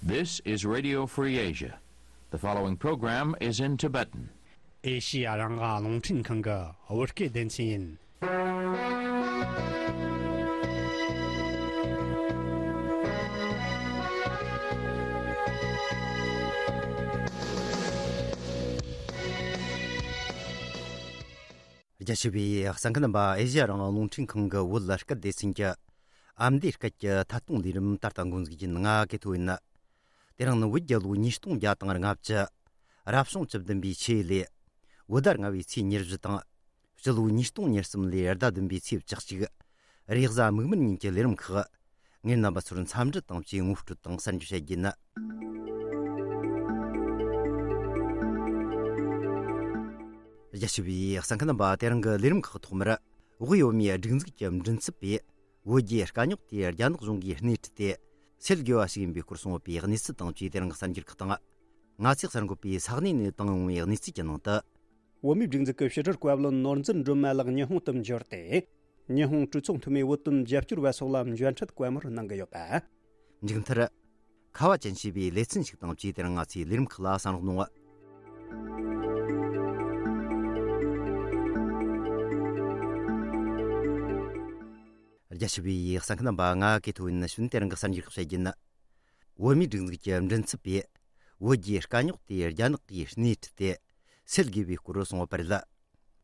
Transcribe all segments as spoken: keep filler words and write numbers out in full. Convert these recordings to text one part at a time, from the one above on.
This is Radio Free Asia. The following program is in Tibetan. ཨེ་ཤི་ཡ་རང་དབང་རླུང་འཕྲིན་ཁང་གི་བོད་སྐད་སྡེ་ཚན་ཡིན། རྒྱ་ཆེ་བའི་གསན་མཁན་རྣམ་པ། ཨེ་ཤི་ཡ་རང་དབང་རླུང་འཕྲིན་ཁང་གི་བོད་སྐད་སྡེ་ཚན་གྱི་ཨ་མདོའི་སྐད་ཀྱི་ཐད་གཏོང་ལས་རིམ་ད་ལྟ་འགོ་འཛུགས་ཀྱིན། ང་གི་ཐོ་ཡིན། དེ་རིང་ནི་བོད་རྒྱལ་ལོ་ཉིས་སྟོང་བརྒྱ་དང་ལྔ་བཅུ། རབ་བྱུང་བཅུ་བདུན་པའི་ཆུ་ཡོས་ལོའི་བོད་ཟླ་ལྔ་པའི་ཚེས་ཉེར་བཞི་དང་། སྤྱི་ལོ་ཉིས་སྟོང་ཉེར་གསུམ་ལོའི་ཟླ་བདུན་པའི་ཚེས་བཅུ་གཅིག། རེས་གཟའ་མིག་དམར་ཉིན་གྱི་ལས་རིམ་ཁག་ངས་རྣམ་པ་ཚོར་འཚམས་འདྲི་དང་བཅས་ངོ་སྤྲོད་དང་གསར་འགྱུར་བཤད་རྒྱུ་ཡིན། རྒྱ་ཆེ་བའི་གསན་མཁན་རྣམ་པ། དེ་རིང་གི་ལས་རིམ་ཁག་ཐོག་མར། དབུས་བོད་མིའི་སྒྲིག་འཛུགས་ཀྱི་མགྲིན་ཚབ་པས་བོད་རྒྱའི་དཀའ་རྙོག་དེ་རྒྱ་ནག་གཞུང་གིས་སྣེ་ཁྲིད་དེ་སེལ་དགོས་པ་ཞིག་ཡིན་པའི་སྐོར་གསུངས་ཡོད་པའི་གནས་ཚུལ་དང་བཅས་དེ་རིང་གི་གསར་འགྱུར་ཁག་དང་། ང་ཚོས་གསར་འགོད་པས་ས་གནས་ནས་བཏང་ཡོང་བའི་གནས་ཚུལ་གྱི་ནང་དུ། བོད་མིའི་སྒྲིག་འཛུགས་ཀྱི་ཕྱི་དྲིལ་བཀའ་བློན་ནོར་འཛིན་སྒྲོལ་མ་ལགས་ཉི་ཧོང་དུ་འབྱོར་ཏེ། ཉི་ཧོང་གྲོས་ཚོགས་འཐུས་མི་བོད་དོན་རྒྱབ་སྐྱོར་བ་སོགས་ལ་མཇལ་འཕྲད་བཀའ་མོལ་གནང་གི་ཡོད་པ། མཇུག་མཐར། ཁ་བ་ཅན་ཞེས་པའི་ལེ་ཚན་ཞིག་དང་བཅས་དེ་རིང་ང་ཚོའི་ལས་རིམ་ཁག་ལ་གསན་རོགས་གནང་། རྒྱ་ཆེ་བའི་གསན་མཁན་རྣམ་པ། ང་གི་ཐོ་ཡིན། ནི་ཞུན་དེ་རིང་གི་གསར་འགྱུར་ཁག་བཤད་རྒྱུ་ཡིན། བོད་མིའི་སྒྲིག་འཛུགས་ཀྱི་མགྲིན་ཚབ་པས་བོད་རྒྱའི་དཀའ་རྙོག་དེ་རྒྱ་ནག་གིས་སྣེ་ཁྲིད་དེ་སེལ་དགོས་པའི་སྐོར་གསུངས་པ་རེད།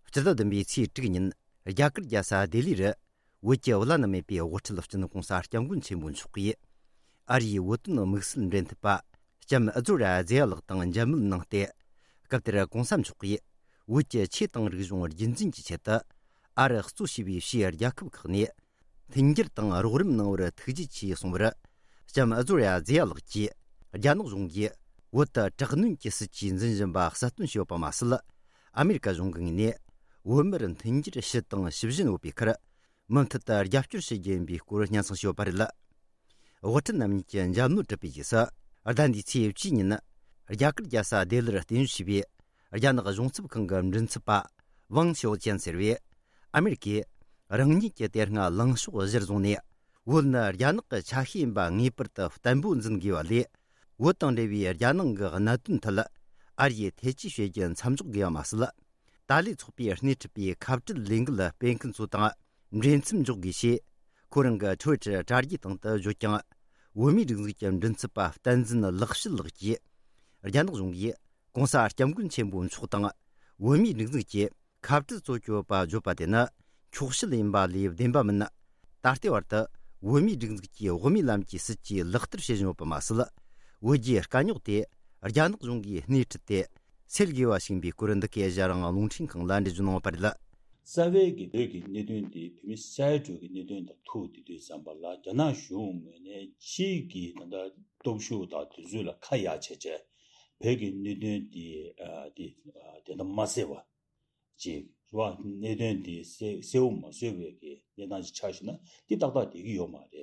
སྤྱི་ཟླ་བདུན་པའི་ཚེས་དྲུག་ཉིན་རྒྱ་གར་རྒྱལ་ས་ལྡི་ལི་རུ་བོད་ཀྱི་བླ་ན་མེད་པའི་དབུ་ཁྲིད་སྤྱི་ནོར་༸གོང་ས་༸སྐྱབས་མགོན་ཆེན་པོ་མཆོག་གིས་ཨ་རིའི་བོད་དོན་དམིགས་བསལ་འབྲེལ་མཐུད་པ་ལྕམ་ཨ་ཛོ་ར་ཛེ་ཡ་ལགས་དང་མཇལ་མོལ་གནང་སྟེ། སྐབས་དེར་༸གོང་ས་མཆོག་གིས་བོད་ཀྱི་ཆོས་དང་རིག་གཞུང་རྒྱུན་འཛིན་གྱི་ཆེད་དུ་ཨ་རི་གཙོ་བྱས་པའི་ཕྱིའི་རྒྱལ་ཁབ་ཁག་ནས་མཐུན་འགྱུར་དང་རོགས་རམ་གནང་བར་ཐུགས་རྗེ་ཆེ་གསུངས་པར། ལྕམ་ཨ་ཛོ་ར་ཛེ་ཡ་ལགས་ཀྱིས་རྒྱ་ནག་གཞུང་གིས་བོད་དུ་དྲག་གནོན་གྱི་སྲིད་ཇུས་འཛིན་བཞིན་པ་གསལ་སྟོན་བྱས་ཡོད་པ་མ་ཟད། ཨ་མེ་རི་ཀ་གཞུང་གི་ངོས་ནས་བོད་མིར་མཐུན་འགྱུར་ཞུ་དང་ཞུ་བཞིན་ཡོད་པའི་ཁར། མུ་མཐུད་དུ་རྒྱབ་སྐྱོར་བྱེད་རྒྱུ་ཡིན་པའི་སྐོར་སྙན་སེང་ཞུས་ཡོད་པ་རེད། དབུ་ཁྲིད་རྣམ་གཉིས་ཀྱི་མཇལ་མོལ་གྲུབ་པའི་རྗེས་སུ། ཟླ་འདིའི་ཚེས་བཅུའི་ཉིན། རྒྱ་གར་རྒྱལ་ས་ལྡི་ལིར་རྟེན་གཞི་བྱས་པའི་རྒྱ་ནག་གཞུང་ཚབ་ཁང་གི་མགྲིན་ཚབ་པ་ཝང་ཞའོ་ཅན་ཟེར་བས། ཨ་མེ་རི་ཀས་རང་ཉིད་ཀྱི་དེ་སྔ་ལངས་ཕྱོགས་གཞིར་བཟུང་ནས། བོད་ནི་རྒྱ་ནག་གི་ཆ་ཤས་ཡིན་པ་ངེས་པར་དུ་བརྟན་པོ་འཛིན་དགོས་པ་ལས། བོད་དང་འབྲེལ་བའི་རྒྱ་ནང་གི་གནད་དོན་ཐད། ཨ་རིས་ཐེ་ཇུས་བྱེད་རྒྱུ་མཚམས་འཇོག་དགོས་པ་མ་ཟད། ཏཱ་ལའི་ཚོགས་པས་སྣེ་ཁྲིད་པའི་ཁ་བྲལ་ལས་འགུལ་སྤེལ་མཁན་ཚོ་དང་འབྲེལ་མཚམས་འཇོག་དགོས་ཞེས། ཁོ་རང་གི་ཊུ་ཝི་ཊར་དྲ་རྒྱའི་སྟེང་དུ་བརྗོད་ཀྱང་། བོད་མིའི་སྒྲིག་འཛུགས་ཀྱི་མགྲིན་ཚབ་པ་བསྟན་འཛིན་ལེགས་བཤད་ལགས་ཀྱིས། རྒྱ་ནག་གཞུང་གིས་༸གོང་ས་༸སྐྱབས་མགོན་ཆེན་པོ་མཆོག་དང་། བོད་མིའི་སྒྲིག་འཛུགས་ཀྱིས་ཁ་བྲལ་གཙོ་གྱོད་པ་བརྗོད་པ་དེ་ནི་འཁྱོག་བཤད་ཡིན་པ་ལས་བདེན་པ་མིན། ད་ལྟའི་བར་དུ་བོད་མིའི་སྒྲིག་འཛུགས་ཀྱིས་དབུ་མའི་ལམ་གྱི་སྲིད་ཇུས་ལག་བསྟར་བྱེད་བཞིན་ཡོད་པ་མ་ཟད། བོད་རྒྱའི་དཀའ་རྙོག་དེ་རྒྱ་ནག་གཞུང་གིས་སྣེ་ཁྲིད་དེ་སེལ་དགོས་པ་ཞིག་ཡིན་པའི་སྐོར། འདི་གའི་ཨེ་ཤ་ཡ་རང་དབང་རླུང་འཕྲིན་ཁང་ལ་འགྲེལ་བརྗོད་གནང་བ་རེད། རྩ་བའི་གི་བོད་ཀྱི་གནད་དོན་དེ་བོད་མི་སེ་འབྲས་ཀྱི་གནད་དོན་དང་ཐུག་དེ་དུས་ཙམ་པ་ལ། རྒྱ་ནག་གཞུང་ངོས་ནས་ཕྱིའི་གི་ད་ལྟ་སྟོབས་ཤུགས་དང་དེ་ཚོ་ལ་ཁ་ཡ་བྱས་བྱས་བོད་ཀྱི་གནད་དོན་དེ་ཨ་དེ་ཨ་དེ་འདྲ་མ་བཟོས་པ་ཅིག་རེད་བ། གནད་དོན་དེ་གསལ་གསལ་པོ་མ་བཟོས་པའི་གི་གནས་སྟངས་ཅིག་ཆགས་བཞིན་ན་དེ་ཏག་ཏག་བསྡད་ཀྱི་ཡོད་མ་རེད།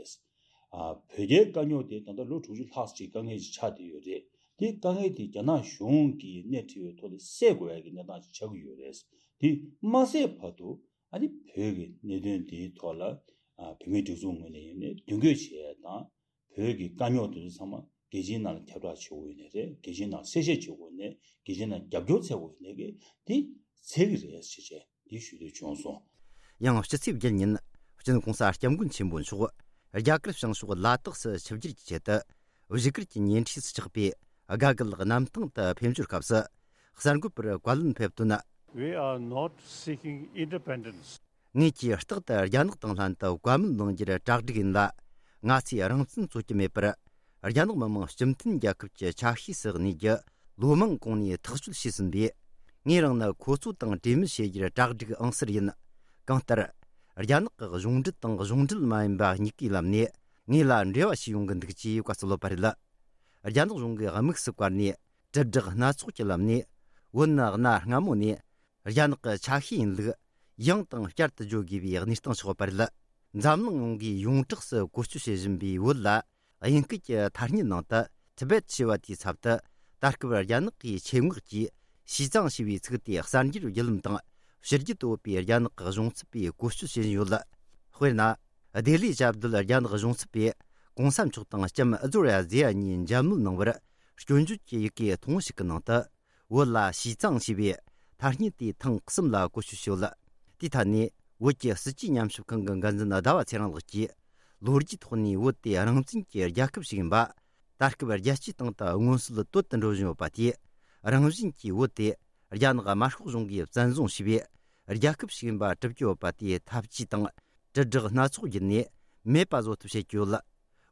ཨ་བོད་རྒྱའི་དཀའ་རྙོག་དེ་ད་ལྟ་ལོ་དྲུག་ཅུ་ལྷག་ཅིག་དཀའ་ངལ་ཅིག་ཆགས་བསྡད་ཡོད་རེད། དེ་དཀའ་ངལ་དེ་རྒྱ་ནག་གཞུང་གིས་སྣེ་ཁྲིད་པའི་ཐོག་ནས་སེལ་དགོས་ཡ་གི་གནས་སྟངས་ཅིག་ཆགས་ཀྱི་ཡོད་རེད། དེ་མ་སེལ་བར་དུ་ཨ་ནི་བོད་ཀྱི་གནད་དོན་དེའི་ཐོག་ལ་ཨ་བོད་མིའི་སྒྲིག་འཛུགས་ངོས་ནས་ཡིན་ནའི་མདུན་སྐྱོད་བྱེད་ཡ་དང་། བོད་ཀྱི་དཀའ་རྙོག་དེ་ཚོ་ཚང་མ་རྒྱལ་སྤྱིའི་ནང་ལ་ཁྱབ་བསྒྲགས་བྱེད་དགོས་ཡོད་ནའི་རེད། རྒྱལ་སྤྱིའི་ནང་གསལ་བཤད་བྱེད་དགོས་ནའི། རྒྱལ་སྤྱིའི་ནང་རྒྱབ་སྐྱོར་བྱེད་དགོས་ནའི་གི་དེ་འཚལ་གི་རེད་ཟེར་བྱས་དེ་ཞུ་འདོད་བྱུང་སོང་། ཡང་སྤྱི་ཚེས་བརྒྱད་ཉིན་སྤྱི་ནོར་༸གོང་ས་༸སྐྱབས་མགོན་ཆེན་པོ་མཆོག་རྒྱ་གར་བྱང་ཕྱོགས་ལ་དྭགས་སུ་ཆིབས་བསྒྱུར་གྱི་ཆེད་དུ་བཞུགས་སྒར་གྱི་ཉེ་འཁྲིས་སུ་ཆགས་པའི་དགའ་སྐལ་གནམ་ཐང་དུ་ཕེབས་འབྱོར་སྐབས་སུ། གསར་འགོད་པར་བཀའ་ལན་ཕེབས་དོན། We are not seeking independence. ངེད་ཀྱིས་རྟག་ཏུ་རྒྱ་ནག་དང་ལྷན་དུ་བཀའ་མོལ་གནང་རྒྱུར་གྲ་སྒྲིག་ཡིན་ལ། ང་ཚོས་རང་བཙན་རྩོད་ཀྱི་མེད་པར། རྒྱ་ནག་མི་དམངས་སྤྱི་མཐུན་རྒྱལ་ཁབ་ཀྱི་ཆ་ཤས་སུ་གནས་རྒྱུ་ལོ་མང་གོང་ནས་ཐག་གཅོད་བྱས་ཟིན་པས། ངས་རང་ནི་ཁོ་ཚོ་དང་གྲོས་མོལ་བྱེད་རྒྱུར་གྲ་སྒྲིག་ཨང་གསར་ཡིན། གང་ལྟར། རྒྱ་ནག་གི་གཞུང་འབྲེལ་དང་གཞུང་འབྲེལ་མ་ཡིན་པ་གཉིས་ཀའི་ལམ་ནས་ངེད་ལ་འབྲེལ་བ་བྱས་ཡོང་གི་འདུག་ཅེས་བཀའ་སྩལ་ཡོད་པ་རེད། རྒྱ་ནག་གཞུང་གིས་དམིགས་སུ་བཀར་ནས་དྲིལ་བསྒྲགས་སྣ་ཚོགས་ཀྱི་ལམ་ནས། བོད་ནི་གནའ་སྔ་མོ་ནས་རྒྱ་ནག་གི་ཆ་ཤས་ཡིན་ལུགས་ཡང་དང་བསྐྱར་དུ་བརྗོད་དགོས་པའི་གནས་སྟངས་ཆགས་པ་རེད། འཛམ་གླིང་ཡོངས་ཀྱིས་ཡོངས་གྲགས་སུ་བཀོལ་སྤྱོད་བྱེད་བཞིན་པའི་བོད་ལ། དབྱིན་སྐད་ཀྱི་ཐ་སྙད་ནང་དུ་ཐི་བེད་ཞེས་པ་དེའི་ཚབ་ཏུ། ད་སྐབས་རྒྱ་ནག་གིས་ཆེད་མངགས་ཀྱིས་ཞི་ཙང་ཞེས་པའི་ཚིག་དེ་གསར་འགྱུར་བརྒྱུད་ལམ་དང་ཕྱི་རྒྱལ་དུ་ཡོད་པའི་རྒྱ་ནག་གི་གཞུང་ཚབ་པས་བཀོལ་སྤྱོད་བྱེད་བཞིན་ཡོད། དཔེར་ན། ལྡི་ལིའི་ཞབས་བརྡོལ་རྒྱ་ནག་གཞུང་ཚབ་པས། གོང་ས་མཆོག་དང་ལྕམ་ཨ་ཛོར་ཡ་ཛེ་ཡ་གཉིས་མཇལ་མོལ་གནང་བར་སྐྱོན་བརྗོད་ཀྱི་ཡི་གེ་ཐུང་ངུ་ཞིག་གི་ནང་དུ། བོད་ལ་ཞི་ཙང་ཞེས་པའི་ཐ་སྙད་དེ་ཐེངས་གསུམ་ལ་བཀོལ་སྤྱོད་བྱས་ཡོད། དེའི་ཐད་ནས་བོད་ཀྱི་སྲིད་ཇུས་ཉམས་ཞིབ་ཁང་གི་འགན་འཛིན་ཟླ་བ་ཚེ་རིང་ལགས་ཀྱིས། ལོ་རྒྱུས་ཐོག་ནས་བོད་དེ་རང་བཙན་གྱི་རྒྱལ་ཁབ་ཞིག་ཡིན་པ། ད་སྐབས་རྒྱལ་སྤྱིའི་སྟེང་དུ་མངོན་གསལ་དོད་དུ་འགྲོ་བཞིན་ཡོད་པ་དེས། རང་བཞིན་གྱིས་བོད་དེ་རྒྱ་ནག་དམར་ཤོག་གཞུང་གིས་བཙན་བཟུང་བྱས་པའི་རྒྱལ་ཁབ་ཞིག་ཡིན་པ་གྲུབ་ཀྱི་ཡོད་པ་དེའི་ཐབས་ཇུས་དང་། དྲིལ་བསྒྲགས་སྣ་ཚོགས་བརྒྱུད་ནས་མེད་པ་བཟོ་ཐབས་བྱེད་ཀྱི་ཡོད།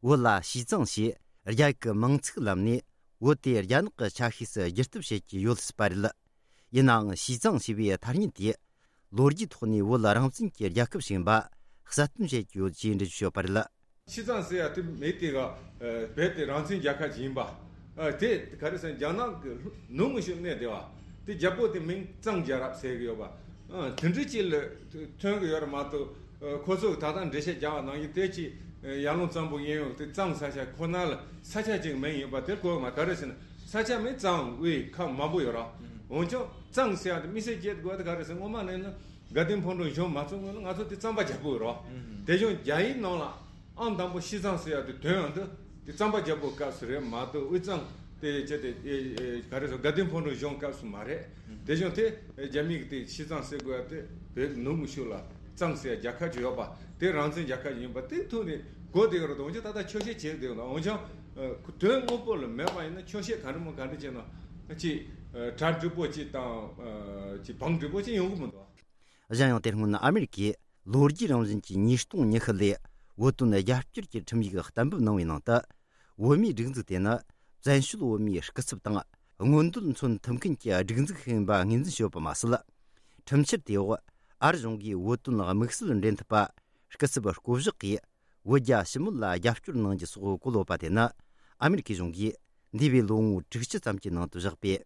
བོད་ལ་ཞི་ཙང་ཞེས་རྒྱ་ཡིག་གི་མིང་ཚིག་ལམ་ནས་བོད་དེ་རྒྱ་ནག་གི་ཆ་ཤས་སུ་བསྒྱུར་ཐབས་བྱེད་ཀྱི་ཡོད་སྲིད་པ་རེད། ཡིན་ནའང་ཞི་ཙང་ཞེས་པའི་ཐ་སྙད་དེ་ལོ་རྒྱུས་ཐོག་ནས་བོད་རང་བཙན་གྱི་རྒྱལ་ཁབ་ཞིག་ཡིན་པ་གསལ་སྟོན་བྱེད་ཀྱི་ཡོད་ཅེས་འགྲེལ་བརྗོད་བྱས་ཡོད་པ་རེད། ཞི་ཙང་ཟེར་ཡ་དེ་མི་དེ་ག་བོད་དེ་རང་བཙན་རྒྱལ་ཁབ་ཅིག་ཡིན་པ། དེ་ག་རེ་ཟེར་རྒྱ་ནག་གི་ནུབ་ངོས་ཕྱོགས་གནས་བསྡད་པ་དེ་རྒྱལ་པོ་དེ་མིང་གཙང་རྒྱལ་རབས་ཟེར་གི་ཡོད་པ། དེ་འདྲ་ཅིག་ལ་ཐོན་གི་ཡོད་རེད་མ་གཏོགས། ཁོ་ཚོ་གི་ད་ལྟ་འགྲེལ་བཤད་རྒྱག་པ་ནང་བཞིན་དེ་ཅིག་ཡར་ཀླུང་གཙང་པོ་གཡས་གཡོན་དེ་གཙང་ས་ཆ་ཁོ་ན་ལ་ས་ཆ་ཅིག་མིང་ཡིན་པ་དེ་གོ་མ། ག་རེ་ཟེར་ན་ས་ཆ་མིང་གཙང་དབུས་ཁམས་མང་པོ་ཡོད་ར། འོན་ཀྱང་གཙང་ཟེར་ཡ་དེ་དམིགས་བསལ་སྐྱེ་དགོས་དེ་ག་རེ་ཟེར། སྔོན་མ་ནས་ནི་དགའ་ལྡན་ཕུན་ཚོགས་གཞུང་མ་ཚུགས་སྔོན་ལ་ང་ཚོ་དེ་གཙང་པ་རྒྱལ་པོ་ཡོད་ར། དེ་བཞིན་རྒྱ་ཡིག་ནང་ལ་ཨང་དང་པོ་ཞི་ཙང་ཟེར་ཡ་དེ་དོན་ཡང་དེ་དེ་གཙང་པ་རྒྱལ་པོའི་སྐབས་སུ་རེད་མ་གཏོགས་དབུས་གཙང་དེ་བྱས་ཏེ་ག་རེ་ཟེར་དགའ་ལྡན་ཕུན་ཚོགས་གཞུང་སྐབས་སུ་མ་རེད། དེ་བཞིན་དེ་རྒྱ་མི་གི་དེ་ཞི་ཙང་ཟེར་དགོས་ཡ་དེ་བོད་ནུབ་ངོས་ཕྱོགས་ལ་གཙང་ཟེར་ཡ་རྒྱལ་ཁབ་ཅིག་ཡོད་པ་དེ་རང་བཙན་རྒྱལ་ཁབ་ཅིག་ཡིན་པ་དེ་ཐོག་ནས་གོ་བསྡད་ཡོད་རེད། འོན་ཀྱང་ད་ལྟ་འཁྱོག་བཤད་བྱེད་བསྡད་ཡོད་ན། འོན་ཀྱང་དོན་དངོས་པོ་ལ་མེད་པ་ཡིན་ན་འཁྱོག་བཤད་ག་འདྲ་མོ་ག་འདྲ་བྱས་ན་ཅིག་གྲ་འགྲིག་པོ་ཅིག་དང་ཅིག་བང་འགྲིག་པོ་ཅིག་ཡོང་གི་མི་འདུག། གཞན་ཡང་དེ་སྔོན་ཨ་མེ་རི་ཀས་ལོ་རྒྱུས་རང་བཞིན་གྱི་ཉིས་སྟོང་ཉི་ཤུ་ལོའི་བོད་དོན་རྒྱབ་སྐྱོར་གྱི་ཁྲིམས་ཡིག་གཏན་འབེབས་གནང་བའི་ནང་དུ། བོད་མིའི་སྒྲིག་འཛུགས་དེ་ནི་བཙན་བྱོལ་བོད་མིའི་སྐུ་ཚབ་དང་མངོན་འདོད་མཚོན་ཐུབ་མཁན་གྱི་སྒྲིག་འཛུགས་ཤིག་ཡིན་པ་ངོས་འཛིན་བྱས་ཡོད་པ་མ་ཟད། ཁྲིམས་འཆར་དེའི་འོག་ཨ་རི་གཞུང་གིས་བོད་དོན་དམིགས་བསལ་འབྲེལ་མཐུད་པ་སྐུ་ཚབ་བསྐོ་གཞག་གིས་བོད་རྒྱ་ཞི་མོལ་ལ་རྒྱབ་སྐྱོར་གནང་རྒྱུ་སོགས་བཀོད་ཡོད་པ་དེ་ནི་ཨ་མེ་རི་ཁའི་གཞུང་གིས་འདས་པའི་ལོ་ངོ་དྲུག་ཅུ་ཙམ་གྱི་ནང་དུ་བཞག་པའི་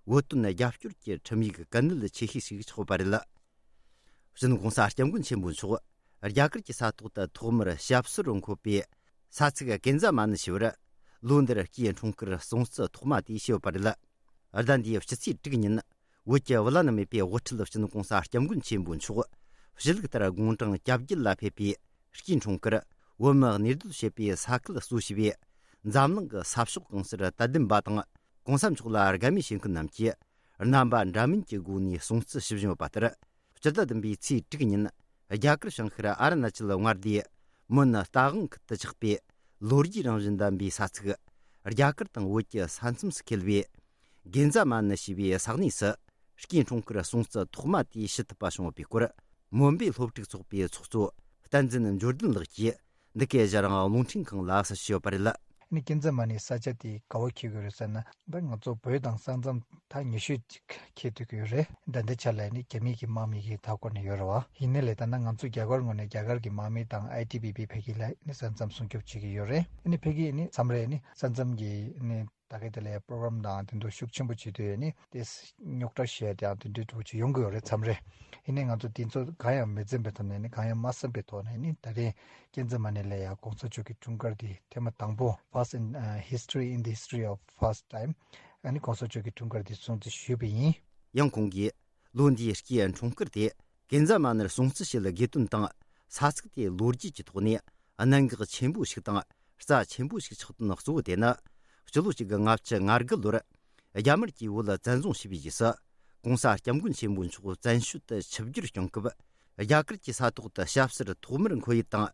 བོད་དོན་རྒྱབ་སྐྱོར་གྱི་ཁྲིམས་ཡིག་གལ་གནད་ཆེ་ཤོས་ཤིག་ཆགས་ཡོད་པ་རེད། སྤྱི་ནོར་༸གོང་ས་༸སྐྱབས་མགོན་ཆེན་པོ་མཆོག་རྒྱ་གར་གྱི་ས་ཐོག་ཏུ་ཐོག་མར་ཞབས་སོར་འཁོད་པའི་ས་ཚིགས་ཀན་ཛ་མ་ནི་ཞེས་པར་ལོ་འདིར་སྐུའི་འཁྲུངས་སྐར་སྲུང་བརྩི་ཐོག་མ་དེ་བྱས་ཡོད་པ་རེད། ཟླ་འདིའི་ཕྱི་ཚེས་དྲུག་ཉིན་བོད་ཀྱི་བླ་ན་མེད་པའི་དབུ་ཁྲིད་སྤྱི་ནོར་༸གོང་ས་༸སྐྱབས་མགོན་ཆེན་པོ་མཆོག་ཞུ་ལུགས་ལྟར་དགུང་གྲངས་གྱ་བརྒྱད་ལ་ཕེབས་པའི་སྐུའི་འཁྲུངས་སྐར་བོད་མིས་གནས་སྡོད་བྱེད་པའི་ས་ཁུལ་གཙོ་བྱས་པའི་འཛམ་གླིང་གི་ས་ཕྱོགས་གང་སར་དད་ལྡན་པ་དང་༸གོང་ས་མཆོག་ལ་དགའ་མོས་བྱེད་མཁན་རྣམས་ཀྱིས་རྣམ་པ་འདྲ་མིན་གྱི་སྒོ་ནས་སྲུང་བརྩི་ཞུ་བཞིན་ཡོད་པ་ལྟར། སྤྱི་ཟླ་བདུན་པའི་ཚེས་དྲུག་ཉིན་རྒྱ་གར་བྱང་ཤར་ཨ་རུ་ན་ཅལ་མངའ་སྡེའི་མོན་རྟ་དབང་ཁུལ་དུ་ཆགས་པའི་ལོ་རྒྱུས་རང་བཞིན་ལྡན་པའི་ས་ཚིགས་རྒྱ་གར་དང་བོད་ཀྱི་ས་མཚམས་སུ་འཁེལ་བའི་གན་ཛ་མ་ནི་ཞེས་པའི་ས་གནས་སུ་སྐུའི་འཁྲུངས་སྐར་སྲུང་བརྩི་ཐོག་མ་དེ་ཞུ་ཐུབ་པ་བྱུང་ཡོད་པའི་སྐོར། མོན་པའི་སློབ་ཕྲུག་ཚོགས་པའི་ཚོགས་གཙོ་བསྟན་འཛིན་འབྱོར་ལྡན་ལགས་ཀྱིས་འདི་གའི་ཞལ་རང་རླུང་འཕྲིན་ཁང་ལ་གསལ་བཤད་ཡོད་པ་རེད། ཨ་ནི་ཀན་ཛ་མ་ནི་ས་ཆ་དེ་ག་པར་འཁེལ་གྱི་ཡོད་རེད་ཟེར་ན། ད་ང་ཚོ་བོད་དང་ས་མཚམས་ད་ཉེ་ཤོས་ཅིག་འཁེལ་སྡོད་ཀྱི་ཡོད་རེད། ད་ལྟའི་ཆ་ལ་ནི་རྒྱ་མི་གི་དམག་མི་གི་མཐའ་འཁོར་ནས་ཡོད་རེད་བ། ཡིན་ནའི་ལས་ད་ནི་ང་ཚོ་རྒྱ་གར་ངོས་ནས་རྒྱ་གར་གྱི་དམག་མི་དང་ཨའི་ཊི་བྷི་བྷི་ཕ་གི་ལ་ནི་ས་མཚམས་སྲུང་སྐྱོབ་བྱེད་ཀྱི་ཡོད་རེད། ཨ་ནི་ཕ་གི་ནི་མཚམས་རེ་ནི་ས་མཚམས་ཀྱི་ནི་ད་ག་དེ་ལ་པྲོག་རམ་དང་དེ་ཚོ་ཤུགས་ཆེན་པོ་བྱེད་དུས་ནི་དེ་རྙོག་དྲ་བཤད་དེའང་དེ་འདྲའི་འདྲ་པོ་ཅིག་ཡོང་གི་ཡོད་རེད། མཚམས་རེ། ཡིན་ནའི་ང་ཚོ་དེ་ཚོ་གང་ཡང་མི་འཛེམ་པའི་ཐོག་ནས་ནི་གང་ཡང་མ་བསམ་པའི་ཐོག་ནས་ནི་ད་རེས་ཀན་ཛ་མ་ནི་ལ་ཡ་༸གོང་ས་མཆོག་གི་འཁྲུངས་སྐར་འདི་ཐེངས་མ་དང་པོ། First in, uh, history, in the history of first time. ཨ་ནི་༸གོང་ས་མཆོག་གི་འཁྲུངས་སྐར་འདི་སྲུང་བརྩི་ཞུས་པ་ཡིན། ཡང་ཁོང་གིས་ལོ་འདིའི་སྐུའི་འཁྲུངས་སྐར་དེ་ཀན་ཛ་མ་ནིར་སྲུང་བརྩི་བྱེད་དགོས་དོན་དང་། ས་ཚིགས་དེ་ལོ་རྒྱུས་ཀྱི་ཐོག་ནས་གནད་འགག་ཆེན་པོ་ཞིག་དང་རྩ་ཆེན་པོ་ཞིག་ཆགས་དོན་གཙོ་བོ་དེ་ནི། སྤྱི་ལོ་གཅིག་དགུ་ལྔ་བཅུ་ང་དགུ་ལོར་རྒྱ་དམར་གྱིས་བོད་ལ་བཙན་བཟུང་བྱས་པའི་རྗེས་སུ། ༸གོང་ས་༸སྐྱབས་མགོན་ཆེན་པོ་མཆོག་བཙན་བྱོལ་དུ་ཆིབས་བསྒྱུར་བསྐྱངས་སྐབས། རྒྱ་གར་གྱི་ས་ཐོག་ཏུ་ཞབས་སོར་ཐོག་མར་འཁོད་ཡུལ་དང་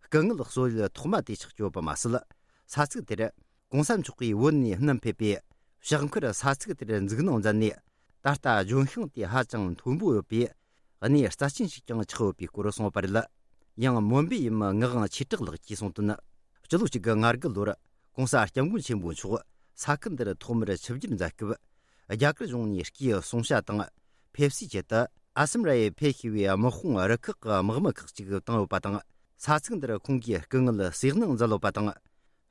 སྐུ་ངལ་གསོ་ཡུལ་ཐོག་མ་དེ་ཆགས་ཀྱི་ཡོད་པ་མ་ཟད། ས་ཚིགས་དེར་༸གོང་ས་མཆོག་གིས་བོད་ནས་བསྣམས་ཕེབས་པའི་ཕྱག་འཁར་ས་ཚིགས་དེར་འཛུགས་གནང་མཛད་ནས། ད་ལྟ་ལྗོན་ཤིང་དེ་ཧ་ཅང་མཐོན་པོ་ཡོད་པས། གནས་རྩ་ཆེན་ཞིག་ཀྱང་ཆགས་ཡོད་པའི་སྐོར་གསུངས་པ་རེད། ཡང་མོན་པའི་ཡུམ་ངག་དབང་ཆོས་གྲགས་ལགས་ཀྱིས་གསུངས་དོན། སྤྱི་ལོ་གཅིག་དགུ་ང་དགུ་ལོར་༸གོང་ས་༸སྐྱབས་མགོན་ཆེན་པོ་མཆོག་ས་ཁུལ་འདིར་ཐོག་མར་ཆིབས་བསྒྱུར་མཛད་སྐབས། རྒྱ་གར་གཞུང་ནས་སྐུའི་གསུང་བཤད་དང་ཕེབས་བསུའི་ཆེད་དུ་ཨ་སམ་ར་ཡེ་ཕེབས་ཤེས་པའི་དམག་དཔུང་རུ་ཁག་གི་དམག་མི་ཁག་ཅིག་བཏང་ཡོད་པ་དང་། ས་ཚིགས་འདིར་ཁོང་གིས་སྐུ་ངལ་སེལ་གནང་མཛད་ཡོད་པ་དང་།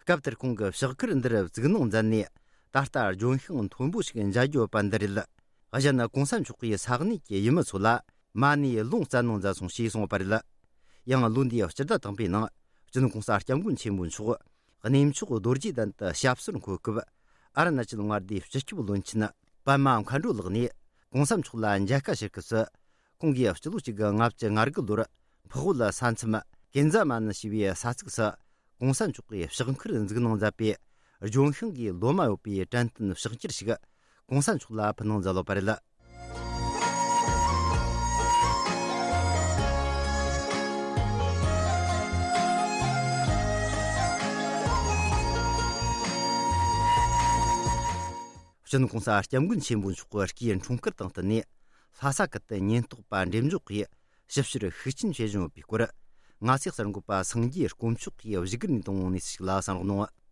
སྐབས་དེར་ཁོང་གིས་ཕྱག་འཁར་འདིར་བཙུགས་གནང་མཛད་ནས། ད་ལྟ་ལྗོན་ཤིང་མཐོན་པོ་ཞིག་མཇལ་རྒྱུ་ཡོད་པ་འདི་རེད། གཞན་༸གོང་ས་མཆོག་གིས་ས་གནས་ཀྱི་ཡུལ་མི་ཚོ་ལ་མ་ཎི་ལུང་བསྩལ་གནང་མཛད་སོང་ཞེས་གསུངས་པ་རེད། ཡང་ལོ་འདིའི་སྤྱི་ཟླ་དང་པོའི་ནང་སྤྱི་ནོར་༸གོང་ས་༸སྐྱབས་མགོན་ཆེན་པོ་མཆོག་གནས་མཆོག་རྡོ་རྗེ་གདན་དུ་ཞབས་སོར་འཁོད་སྐབས། ཨ་རུ་ན་ཅལ་མངའ་སྡེའི་སྤྱི་ཁྱབ་བློན་ཆེན་པདྨ་མཁའ་འགྲོ་ལགས་ནས་༸གོང་ས་མཆོག་ལ་མཇལ་ཁ་ཞུ་སྐབས་སུ། ཁོང་གིས་སྤྱི་ལོ་གཅིག་དགུ་ལྔ་བཅུ་ང་དགུ་ལོར་འཕགས་བོད་ས་མཚམས་ཀན་ཛ་མ་ནི་ཞེས་པའི་ས་ཚིགས་སུ་ གོང་ས་མཆོག་གིས་ཕྱག་འཁུར་འཛུགས་གནང་མཛད་པའི་ལྗོན་ཤིང་གི་ལོ་མ་ཡོད་པའི་དྲན་རྟེན་ཕྱག་འཁྱེར་ཞིག་གོང་ས་མཆོག་ལ་ཕུལ་གནང་མཛད་ཡོད་པ་རེད། སྤྱི་ནོར་༸གོང་ས་༸སྐྱབས་མགོན་ཆེན་པོ་མཆོག་གི་སྐུའི་འཁྲུངས་སྐར་དང་བསྟུན་ནས། ལྷ་ས་ཁུལ་དུ་ཉེན་རྟོག་པ་འགྲེམས་འཇོག་གིས་ཞིབ་བཤེར་ཤུགས་ཆེན་བྱེད་བཞིན་ཡོད་པའི་སྐོར། ང་ཚོའི་གསར་འགོད་པ་སངས་རྒྱས་དཀོན་མཆོག་གིས་བཞུགས་སྒར་ནས་བཏང་བའི་གནས་ཚུལ་ཞིག་ལ་གསན་རོགས་གནང་།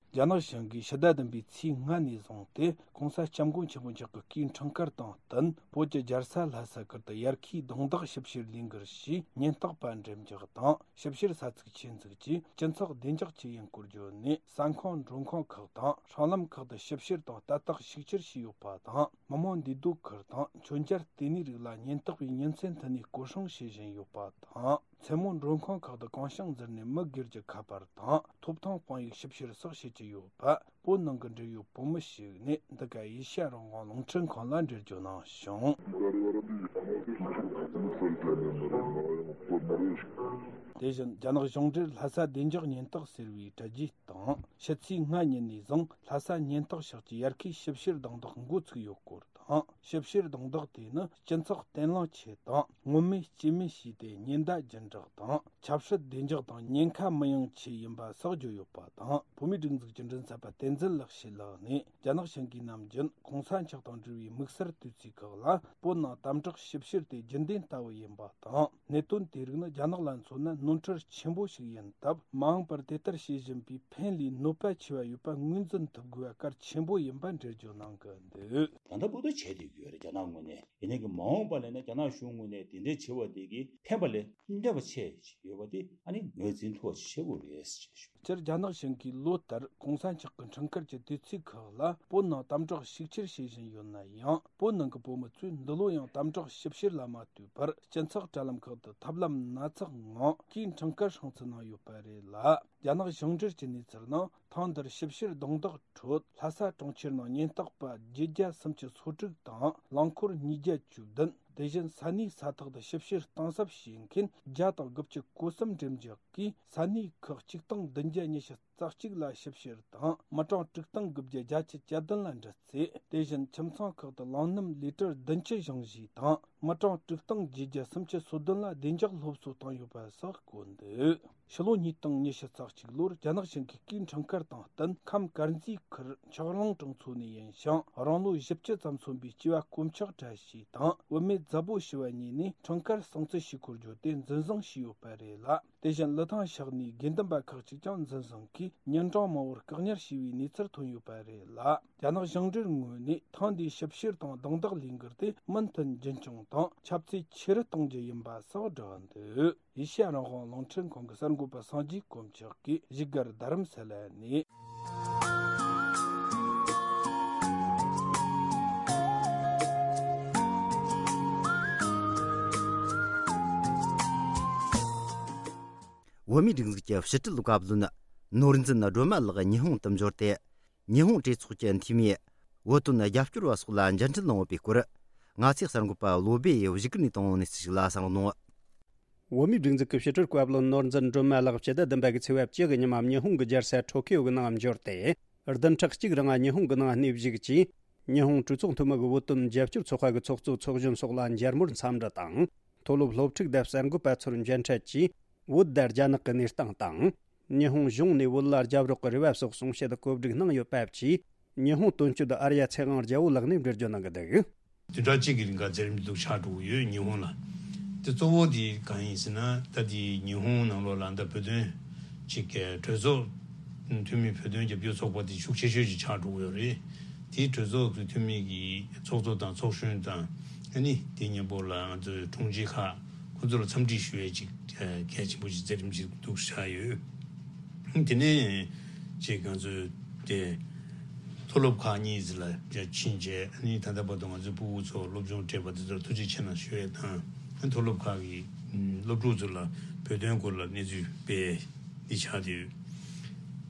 རྒྱ་ནག་གཞུང་གིས་ཕྱི་ཟླ་བདུན་པའི་ཚེས་ལྔ་ནས་བཟུང་སྟེ། ༸གོང་ས་༸སྐྱབས་མགོན་ཆེན་པོ་མཆོག་གི་སྐུའི་འཁྲུངས་སྐར་དང་བསྟུན། བོད་ཀྱི་རྒྱལ་ས་ལྷ་ས་ཁུལ་དུ་ཡར་ཁའི་རྡུང་རྡེག་ཞིབ་བཤེར་ལས་འགུལ་ཞེས་ཉེན་རྟོག་པ་འགྲེམས་འཇོག་དང་། ཞིབ་བཤེར་ས་ཚིགས་ཆེད་འཛུགས་ཀྱིས་སྤྱི་ཚོགས་བདེ་འཇགས་ཀྱི་འགན་འཁུར་བརྗོད་ནས། ས་ཁང་མགྲོན་ཁང་ཁག་དང་སྲང་ལམ་ཁག་ཏུ་ཞིབ་བཤེར་དང་ལྟ་རྟོག་ཤུགས་ཆེར་བྱས་ཡོད་པ་དང་། མི་མང་འདུས་སྡོད་ཁུལ་དང་མཆོད་མཇལ་ལྟེ་གནས་རིགས་ལ་ཉེན་རྟོག་པས་ཉིན་མཚན་མཐུད་ནས་སྐོར་སྲུང་བྱེད་བཞིན་ཡོད་པ་དང་། མཚན་མོ་མགྲོན་ཁང་ཁག་ཏུ་གང་བྱུང་འཛུལ་ནས་མི་སྒེར་གྱི་ཁ་པར་དང་ཐོབ་ཐང་དཔང་ཡིག་ཞིབ་བཤེར་སོགས་བྱེད་ཀྱི་ཡོད་པ། བོད་ནང་གི་འབྲེལ་ཡོད་བོད་མི་ཞིག་ནས་འདི་ག་ཨེ་ཤ་ཡ་རང་དབང་རླུང་འཕྲིན་ཁང་ལ་འགྲེལ་བརྗོད་གནང་བྱུང་། དེ་བཞིན་རྒྱ་ནག་གཞུང་འབྲེལ་ལྷ་ས་བདེ་འཇགས་ཉེན་རྟོག་ཟེར་བའི་དྲ་རྒྱའི་སྟེང་ཕྱི་ཚེས་ལྔ་ཉིན་ནས་བཟུང་ལྷ་ས་ཉེན་རྟོག་ཤག་གིས་ཡར་ཁའི་ཞིབ་བཤེར་རྡུང་རྡེག་འགོ་ཚུགས་ཡོད་སྐོར་དང་། ཞིབ་བཤེར་རྡུང་རྡེག་དེ་ནི་སྤྱི་ཚོགས་བརྟན་ལྷིང་ཆེད་དང་ངོ་མས་སྐྱེས་སྨན་བྱས་ཏེ་ཉེན་བརྡ་རྒྱུན་བསྒྲགས་དང་ཆབ་སྲིད་བདེ་འཇགས་དང་ཉེན་ཁ་མི་ཡོང་ཆེད་ཡིན་པ་སོགས་བརྗོད་ཡོད་པ་དང་། བོད་མིའི་སྒྲིག་འཛུགས་ཀྱི་མགྲིན་ཚབ་པ་བསྟན་འཛིན་ལེགས་བཤད་ལགས་ནས། རྒྱ་ནག་གཞུང་གིས་ནམ་རྒྱུན་༸གོང་ས་མཆོག་དང་འབྲེལ་བའི་དམིགས་བསལ་དུས་ཚིགས་ཁག་ལ་བོད་ནང་དམ་དྲག་ཞིབ་བཤེར་དེ་རྒྱུན་ལྡན་ལྟ་བུ་ཡིན་པ་དང་། གནད་དོན་དེ་རིགས་ནི་རྒྱ་ནག་ལ་མཚོན་ན་ནོར་འཁྲུལ་ཆེན་པོ་ཞིག་ཡིན་སྟབས། མ་འོངས་པར་དེ་ལྟར་བྱེད་བཞིན་པའི་ཕན་ལས་གནོད་པ་ཆེ་བ་ཡོད་པ་ངོས་འཛིན་ཐུབ་དགོས་པ་གལ་ཆེན་པོ་ཡིན་པ་འགྲེལ་བརྗོད་གནང་གི་འདུག། ད་ལྟ་བར་དུ་བྱས་བསྡད་ཡོད་རེད། རྒྱ་ནག་ངོས་ནས། ཡིན་ནའི་གི་མ་འོངས་པ་ལ་ཡིན་ན་རྒྱ་ནག་གཞུང་ངོས་ནས་དེ་འདྲའི་བྱེད་པ་དེ་གི་ཕན་པ་ལས་གནོད་པ་ཆེ་ཞིག་ཡོད་པ་དེ་ཨ་ནི་ངོས་འཛིན་ཐུབ་པ་ཞིག་བྱེད་དགོས་རེད་ཞེས་ཞུ། སྤྱིར་རྒྱ་ནག་གཞུང་གིས་ལོ་ལྟར་༸གོང་ས་མཆོག་གི་འཁྲུངས་སྐར་གྱི་དུས་ཚིགས་ཁག་ལ་བོད་ནང་དམ་དྲག་ཤུགས་ཆེར་བྱེད་བཞིན་ཡོད་ན་ཡང་། བོད་ནང་གི་བོད་མི་ཚོས་འདི་ལོ་ཡང་དམ་དྲག་ཞིབ་བཤེར་ལ་མ་ལྟོས་པར་སྤྱི་ཚོགས་དྲ་ལམ་ཁག་ཏུ་ཐབས་ལམ་སྣ་ཚོགས་ངང་སྐུའི་འཁྲུངས་སྐར་སྲུང་བརྩི་གནང་ཡོད་པ་རེད་ལ། རྒྱ་ནག་གཞུང་འབྲེལ་གྱི་གནས་ཚུལ་ནང་། ཐེངས་འདིར་ཞིབ་བཤེར་རྡུང་རྡེག་ཁྲོད་ལྷ་ས་གྲོང་ཁྱེར་ནང་ཉེན་རྟོག་པ་བརྒྱད་བརྒྱ་སུམ་ཅུ་སོ་དྲུག་དང་། རླངས་འཁོར་ཉིས་བརྒྱ་བཅུ་བདུན། དེ་བཞིན་ས་གནས་ས་ཐོག་ཏུ་ཞིབ་བཤེར་གཏིང་ཟབ་བྱེད་མཁན་བརྒྱ་དང་དགུ་བཅུ་གོ་གསུམ་འགྲེམས་འཇོག་གིས། ས་གནས་ཁག་གཅིག་སྟོང་བདུན་བརྒྱ་ཉི་ཤུ་རྩ་གཅིག་ལ་ཞིབ་བཤེར་དང་། མི་གྲངས་དྲུག་སྟོང་དགུ་བརྒྱ་བརྒྱད་ཅུ་གྱ་བདུན་ལ་འདྲི་རྩད། དེ་བཞིན་ཁྱིམ་ཚང་ཁག་ཏུ་རླངས་སྣུམ་ལི་ཊར་བདུན་ཅུ་བཞེངས་བཞེས་དང་། མི་གྲངས་དྲུག་སྟོང་བརྒྱད་བརྒྱ་སུམ་ཅུ་སོ་བདུན་ལ་བདེ་འཇགས་སློབ་གསོ་བཏང་ཡོད་པ་སོགས་བཀོད་འདུག། ཕྱི་ལོ་ཉིས་སྟོང་ཉི་ཤུ་རྩ་གཅིག་ལོར་རྒྱ་ནག་གཞུང་གིས་སྐུའི་འཁྲུངས་སྐར་དང་བསྟུན། ཁམས་དཀར་མཛེས་ཁུལ་ཆག་རླུང་གྲོང་ཚོ་ནས་ཡིན་ཞིང་། རང་ལོ་བཞི་བཅུ་ཙམ་སོན་པའི་སྐྱེས་པ་དཀོན་མཆོག་བཀྲ་ཤིས་དང་། བུད་མེད་མཛའ་བོ་ཞི་བ་གཉིས་ནས་འཁྲུངས་སྐར་སྲུང་བརྩི་ཞུ་སྐོར་བརྗོད་དེ་འཛིན་བཟུང་བྱས་ཡོད་པ་རེད་ལ། དེ་བཞིན་ལི་ཐང་ཤག་ནས་དགེ་འདུན་པ་ཁག་ཅིག་ཀྱང་འཛིན་བཟུང་གིས་ཉིན་གྲངས་མང་བོར་བཀག་ཉར་བྱས་པའི་གནས་ཚུལ་ཐོན་ཡོད་པ་རེད་ལ། རྒྱ་ནག་གཞུང་འབྲེལ་ངོས་ནས་ཐེངས་འདིའི་ཞིབ་བཤེར་དང་རྡུང་རྡེག་ལས་འགུལ་དེ་མུ་མཐུད་རྒྱུན་འཁྱོངས་དང་ཁྱབ་ཚད་ཆེ་རུ་གཏོང་རྒྱུ་ཡིན་པ་སོགས་བསྒྲགས་འདུག། ཨེ་ཤ་ཡ་རང་དབང་རླུང་འཕྲིན་ཁང་གི་གསར་འགོད་པ་སངས་རྒྱས་དཀོན་མཆོག་གིས་བཞུགས་སྒར་རྡ་རམ་ས་ལ་ནས། བོད་མིའི་སྒྲིག་འཛུགས་ཀྱི་ཕྱི་དྲིལ་བཀའ་བློན་ནོར་འཛིན་སྒྲོལ་མ་ལགས་ཉི་ཧོང་དུ་འབྱོར་ཏེ། ཉི་ཧོང་གྲོས་ཚོགས་ཀྱི་འཐུས་མིས་བོད་དོན་རྒྱབ་སྐྱོར་བ་སོགས་ལ་མཇལ་འཕྲད་གནང་ཡོད་པའི་སྐོར། ང་ཚོའི་གསར་འགོད་པ་བློ་སྦེ་ཡིས་བཞུགས་སྒར་ནས་བཏང་བའི་གནས་ཚུལ་ཞིག་ལ་གསན་རོགས་གནང་། བོད་མིའི་སྒྲིག་འཛུགས་ཀྱི་ཕྱི་དྲིལ་བཀའ་བློན་ནོར་འཛིན་སྒྲོལ་མ་ལགས་ཕྱི་ཟླ་བདུན་པ་གི་ཚེས་པ་བཅུ་གི་ཉི་མ་ཉི་ཧོང་གི་རྒྱལ་ས་ཊོ་ཀིའོ་གི་ནང་འབྱོར་ཏེ། བདུན་ཕྲག་གཅིག་རིང་ཉི་ཧོང་གི་ནང་གནས་བཞུགས་ཀྱིས། ཉི་ཧོང་གྲོས་ཚོགས་འཐུས་མི་གི་བོད་དོན་རྒྱབ་སྐྱོར་ཚོགས་པ་གི་ཚོགས་གཙོ་ཚོགས་གཞོན་སོགས་ལ་མཇལ་མོལ་འཚམས་འདྲི་དང་། མཐོ་སློབ་སློབ་ཕྲུག་དང་གསར་འགོད་པ་ཚོར་མཇལ་འཕྲད་ཀྱིས། བོད་དང་རྒྱ་ནག་གི་གནས་སྟངས་དང་། ཉི་ཧོང་གཞུང་ནས་བོད་ལ་རྒྱབ་རོགས་ཀྱི་རེ་བ་སོགས་གསུང་བཤད་གོ་སྒྲིག་གནང་ཡོད་པ་བཅས། ཉི་ཧོང་དོན་གཅོད་ཨར་ཡ་ཚེ་དབང་རྒྱལ་པོ་ལགས་ནས་འགྲེལ་བརྗོད་གནང་གི་འདུག། བདུན་ཕྲག་གཅིག་གི་རིང་ག་ཚེ་རིང་འདུག་ཆགས་འགྲོ་གི་ཡོད་ཉི་ཧོང་ལ། དེ་གཙོ་བོ་དེ་གང་ཡིན་ཟེར་ན། ད་དེ་ཉི་ཧོང་ནང་ལོགས་ལ་ད་བོད་དོན་ཅིག་གི་གྲོས་ཚོགས་འཐུས་མི་བོད་དོན་རྒྱབ་སྐྱོར་ཚོགས་པ་དེ་ཤུགས་ཆེ་ཤོས་ཅིག་ཆགས་འགྲོ་གི་ཡོད་རེད། དེའི་གྲོས་ཚོགས་ཀྱི་འཐུས་མི་གི་ཚོགས་གཙོ་དང་ཚོགས་གཞོན་དང་། ཨ་ནི་དེ་མཉམ་པོ་ལ་ང་ཚོའི་དྲུང་ཆེ་ཁག་ཁོ་ཚོ་ལ་འཚམས་འདྲི་ཞུ་ཡས་ཅིག་གལ་ཆེན་པོ་ཅིག་མཛད་རིམ་ཅིག་འདུག་ཆགས་ཡོད། དེ་ནས་ཅིག་ང་ཚོས་དེ་མཐོ་སློབ་ཁག་གཉིས་ལ་ཕྱིན་རྗེས། ཨ་ནི་ད་ལྟ་བར་དུ་ང་ཚོའི་ཕྲུ་གུ་ཚོ་སློབ་སྦྱོང་སྤྲད་པ་དེ་ཚོར་ཐུགས་རྗེ་ཆེ་གནང་ཞུ་ཡས་དང་། མཐོ་སློབ་ཁག་གི་སློབ་ཕྲུག་ཚོ་ལ་བོད་དོན་སྐོར་ལ་གནས་ཚུལ་སྤེལ་འདི་ཆགས་བསྡད་ཡོད།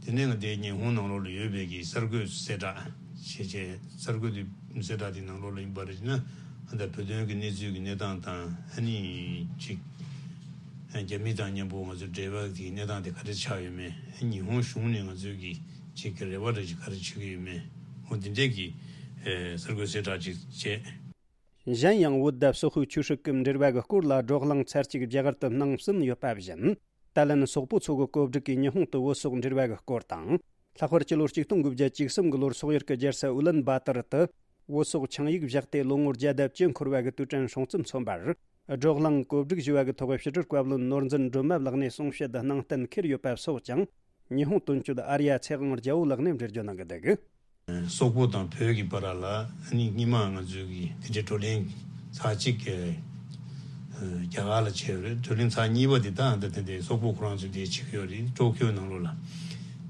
དེ་ནས་ང་དེ་ཉི་ཧོང་ནང་ལོགས་ལ་ཡོད་པའི་གི་གསར་འགོད་གསལ་བསྒྲགས་བྱས་རྗེས། གསར་འགོད་དེ་གསལ་བསྒྲགས་དེ་ནང་ལོགས་ལ་ཡིན་པ་རེད་ན། ཨ་ད་བོད་དོན་གི་གནས་ཚུལ་གི་གནས་སྟངས་དང་། ཨ་ནི་ཅིག་ རྒྱ་མི་དང་མཉམ་པོ་ང་ཚོའི་འབྲེལ་བ་གི་གནས་སྟངས་དེ་ག་རེ་ཆགས་ཡོད་མེད། ཉི་ཧོང་གཞུང་ནས་ང་ཚོའི་གི་ཅིག་གི་རེ་བ་འདྲ་ཅིག་ག་རེ་བྱེད་ཀྱི་ཡོད་མེད། འོ་འདི་འདྲས་ཀྱི་གསར་འགོད་གསལ་བསྒྲགས་ཅིག་བྱས། གཞན་ཡང་བོད་དང་སོག་པོའི་ཆོས་སྲིད་ཀྱི་འབྲེལ་བ་གི་སྐོར་ལ་བགྲོ་གླེང་ཚར་གཅིག་རྒྱ་གར་དུ་གནང་ཟིན་ཡོད་པ་བཞིན། ད་ལན་སོག་པོ་ཚོ་གི་བཀོད་སྒྲིག་གིས་ཉི་ཧོང་དུ་བོད་སོག་འབྲེལ་བ་གི་སྐོར་དང་། ལྷག་པར་སྤྱི་ལོ་གཅིག་སྟོང་དགུ་བརྒྱ་བཅུ་གསུམ་གི་ལོར་སོག་ཡུལ་གྱི་རྒྱལ་ས་ཨུ་ལན་བཱ་ཏར་དུ་བོད་སོག་ཆིངས་ཡིག་བཞག་སྟེ་ལོ་ངོ་བརྒྱ་དང་བཅུ་འཁོར་བ་གི་དུས་དྲན་སྲུང་བརྩི་མཚོན་པར། བགྲོ་གླེང་གོ་སྒྲིག་ཞུ་བ་གི་ཐོག་ཕྱི་དྲིལ་བཀའ་བློན་ནོར་འཛིན་སྒྲོལ་མ་ལགས་ནས་གསུང་བཤད་གནང་གཏན་འཁེལ་ཡོད་པ་སོགས་ཀྱང་། ཉི་ཧོང་དོན་གཅོད་ཨར་ཡ་ཚེ་དབང་རྒྱལ་པོ་ལགས་ནས་འགྲེལ་བརྗོད་གནང་གི་འདུག། སོག་པོ་དང་བོད་ཀྱི་བར་ལ་ནི་སྔོན་མ་ང་ཚོའི་གི་དེ་འདྲའི་བགྲོ་གླེང་ཚར་གཅིག་གི་རྒྱ་གར་ལ་བྱས་ཡོད་རེད། བགྲོ་གླེང་ཚར་གཉིས་པ་དེ་ད་ད་དེ་འདྲའི་སོག་པོ་ཁོ་རང་ཚོས་དེ་བྱེད་ཀྱི་ཡོད་རེད། ཀྲོ་ཀྱོ་ནང་ལོགས་ལ་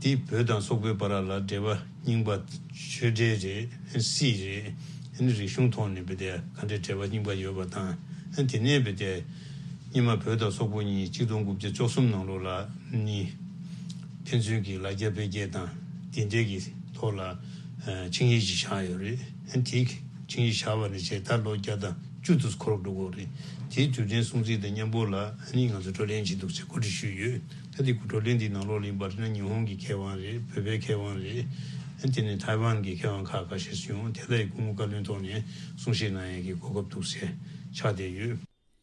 དེ་བོད་དང་སོག་པོའི་བར་ལ་འབྲེལ་བ་རྙིང་པ་ཆོས་འབྲེལ་རེད། སྲིད་རེད། རིག་གཞུང་ཐོག་ནས་བོད་དེ་ག་འདྲའི་འབྲེལ་བ་རྙིང་པ་ཡོད་པ་དང་། དེ་ནས་བོད་དེ་སྔོན་མ་བོད་དང་སོག་པོ་གཉིས་གཅིག་སྟོང་དགུ་བརྒྱ་བཅུ་གསུམ་ནང་ལོགས་ལ་ནི་ཕན་ཚུན་གྱི་ལ་རྒྱ་འཕེལ་རྒྱས་དང་དེ་འབྲེལ་གྱི་ཐོག་ལ་ཆིངས་ཡིག་ཅིག་བཞག་ཡོད་རེད། དེ་ཆིངས་ཡིག་བཞག་པ་ནས་བྱས་ད་ལོ་བརྒྱ་དང་བཅུ་དུས་འཁོར་འགྲོ་གི་རེད། དེའི་དུས་དྲན་སྲུང་བརྩི་དང་མཉམ་པོ་ལ་ནི་ང་ཚོ་བགྲོ་གླེང་བྱེད་འདུག་ཅེས་གོ་སྒྲིག་ཞུས་ཡོད། ད་དེ་བགྲོ་གླེང་འདི་ནང་ལོགས་ལ་ཡིན་པར་ན་ཉི་ཧོང་གི་མཁས་དབང་རེད། བོད་པའི་མཁས་དབང་རེད། དེ་ནས་ཐའེ་ཝན་གྱི་མཁས་དབང་ཁག་ཁ་ཤས་ཤིག་ཡོང་དེ་ལ་སྐུ་ངོ་བཀའ་བློན་ཐོག་ནས་གསུང་བཤད་གནང་ཡས་ཀྱི་གོ་སྐབས་འདུག་ཟེར་ཆགས་བསྡད་ཡོད།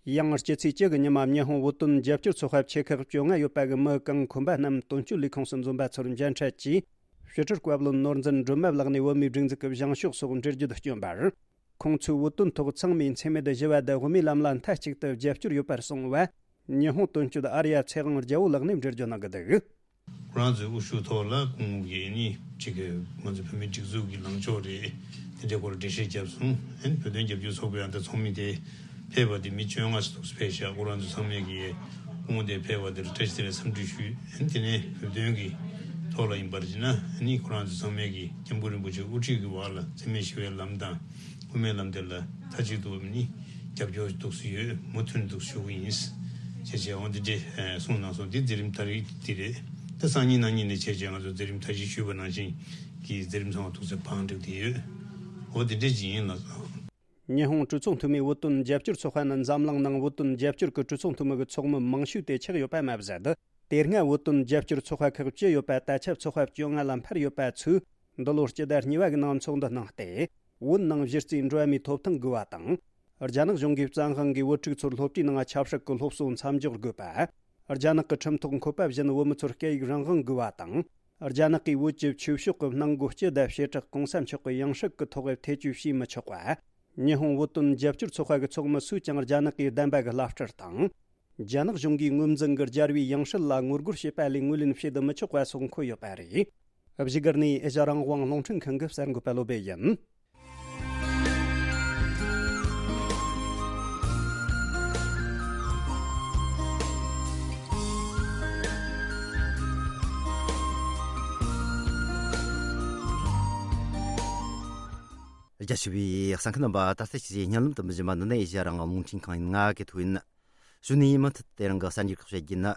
ཡང་སྤྱི་ཚེས་བཅུ་གི་ཉི་མ་ཉི་ཧོང་བོད་དོན་རྒྱབ་སྐྱོར་ཚོགས་པ་ཆེ་ཁག་བཅོ་ལྔ་ཡོད་པ་གི་མི་གང་འཁོན་པ་རྣམས་དོན་གཅོད་ལས་ཁུངས་སུ་འཛོམས་པ་ཚོར་མཇལ་འཕྲད་ཀྱིས། ཕྱི་དྲིལ་བཀའ་བློན་ནོར་འཛིན་སྒྲོལ་མ་ལགས་ནས་བོད་མིའི་སྒྲིག་འཛུགས་ཀྱི་བཞེངས་ཕྱོགས་སོགས་འགྲེལ་བརྗོད་བསྐྱོན་པར། ཁོང་ཚོས་བོད་དོན་ཐོག་ཚང་མས་འཚེ་མེད་ཞི་བ་དང་དབུ་མའི་ལམ་ལ་མཐའ་གཅིག་ཏུ་རྒྱབ་སྐྱོར་ཡོད་པར་གསུངས་བ། ཉི་ཧོང་དོན་གཅོད་ཨར་ཡ་ཚེ་དབང་རྒྱལ་པོ་ལགས་ནས་འགྲེལ་བརྗོད་གནང་གི་འདུག། ཁོ་རང་ཚོའི་དབུ་བཞུགས་ཐོག་ལ་སྐུ་ངོ་གིས་ནི་གཅིག་གི་ང་ཚོ་བོད་མིའི་སྒྲིག་འཛུགས་ཀྱི་ལངས་ཕྱོགས་རེད། དེ་འདྲའི་སྐོར་འགྲེལ་བཤད་བརྒྱབ་སོང་། ཨན་བོད་དོན་རྒྱབ་སྐྱོར་ཚོགས་པའི་ཨ་མདའ་ཚོགས་མི་དེ་ཕེབས་པ་དེ་མི་བཅོ་ལྔ་ཙམ་ཕེབས་ཤག་ཁོ་རང་ཚོ་ཚང་མས་ཀྱི་སྐུ་ངོ་དེ་ཕེབས་པ་དེར་བཀྲ་ཤིས་བདེ་ལེགས་འཚམས་འདྲི་ཞུས། ཨན་དེ་ནས་བོད་དོན་གྱི་ཐོག་ལ་ཡིན་པར་བྱས་ན་ནི་ཁོ་རང་ཚོ་ཚང་མས་ཀྱི་སྐྱབས་མགོན་རིན་པོ་ཆེ་དབུ་ཁྲིད་ཀྱི་འོག་ལ་འཚེ་མེད་ཞི་བའི་ལམ་དང་དབུ་མའི་ལམ་དེ་ལ་མཐའ་གཅིག་ཏུ་ནི་རྒྱབ་སྐྱོར་འདུག་སེ་ཡོད། མུ་མཐུད་འདུག་ཞུ་གི་ཡིན། ཅེས་བྱས་འོང་འདི་འདྲའི་གསུངས་གནང་སོང་། འདི་མཛད་རིམ་ད་རེས་འདི་རེད། ད་སང་ཉིན་གནངས་ཉིན་ནས་བྱས་རྗེས་ང་ཚོ་མཛད་རིམ་ད་གཞི་ཞུས་པ་ནང་བཞིན་གྱི་མཛད་རིམ་ཚང་མ་ཐུགས་སེ་བང་བསྒྲིགས་བསྡད་ཡོད། འོ་འདི་འདྲ་ཅིག་ཡིན་ལགས་སོ། ཉི་ཧོང་གྲོས་ཚོགས་འཐུས་མིའི་བོད་དོན་རྒྱབ་སྐྱོར་ཚོགས་པ་ནི་འཛམ་གླིང་ནང་བོད་དོན་རྒྱབ་སྐྱོར་གྱི་གྲོས་ཚོགས་འཐུས་མི་གི་ཚོགས་མི་མང་ཤོས་དེ་ཆགས་ཡོད་པ་མ་ཟད། དེ་སྔ་བོད་དོན་རྒྱབ་སྐྱོར་ཚོགས་པ་ཁག་བཅུ་ཡོད་པ་ད་ཆ་ཚོགས་པ་བཅོ་ལྔ་ལ་འཕར་ཡོད་པ་ཚོས་འདི་ལོ་སྤྱི་ཟླ་གཉིས་པ་གི་ནང་ཚོགས་འདུ་གནང་སྟེ། བོད་ནང་གཞི་རྩའི་འགྲོ་བ་མིའི་ཐོབ་ཐང་དགོས་པ་དང་། རྒྱ་ནག་གཞུང་གིས་བཙན་དབང་གིས་བོད་ཕྲུག་ཚོར་སློབ་གྲྭའི་ནང་ཆབ་སྲིད་ཀྱི་སློབ་གསོ་མཚམས་འཇོག་དགོས་པ། རྒྱ་ནག་གི་ཁྲིམས་ཐོག་འཁོད་པ་བཞིན་བོད་མི་ཚོར་སྐད་ཡིག་རང་དབང་དགོས་པ་དང་། རྒྱ་ནག་གིས་བོད་ཀྱི་ཆོས་ཕྱོགས་ཀྱི་གནང་སྒོ་སྤྱི་དང་བྱེ་བྲག་གོང་ས་མཆོག་གི་ཡང་སྲིད་ཀྱི་ཐོག་ཐེ་བྱུས་བྱས་མི་ཆོག་པ། ཉི་ཧོང་བོད་དོན་རྒྱབ་སྐྱོར་ཚོགས་པ་གི་ཚོགས་མི་སུས་ཀྱང་རྒྱ་ནག་གིས་བདམས་པ་གི་བླ་སྤྲུལ་དང་། རྒྱ་ནག་གཞུང་གིས་ངོས་འཛིན་གྱི་རྒྱལ་བའི་ཡང་སྲིད་ལ་ངོ་རྒོལ་བྱེད་པ་ལས་ངོས་ལེན་བྱེད་དུ་མི་ཆོག་པ་སོགས་འཁོད་ཡོད་པ་རེད། བཞུགས་སྒར་ནས་ཨེ་ཤ་རང་དབང་རླུང་འཕྲིན་ཁང་གི་གསར་འགོད་པ་བློ་བྷེ་ཡིན། རྒྱ་ཆེ་བའི་གསན་མཁན་རྣམ་པ། ད་ལྟ་ཞིག་བརྙན་ལམ་དུ་མི་བཞིན་པ་འདི་ནི་ཨེ་ཤ་རང་དབང་རླུང་འཕྲིན་ཁང་ཡིན། ང་གི་ཐུག་ཡིན། གཞུག་ནས་མུ་མཐུད་དེ་རིང་གི་གསར་འགྱུར་ཁག་བཤད་རྒྱུ་ཡིན།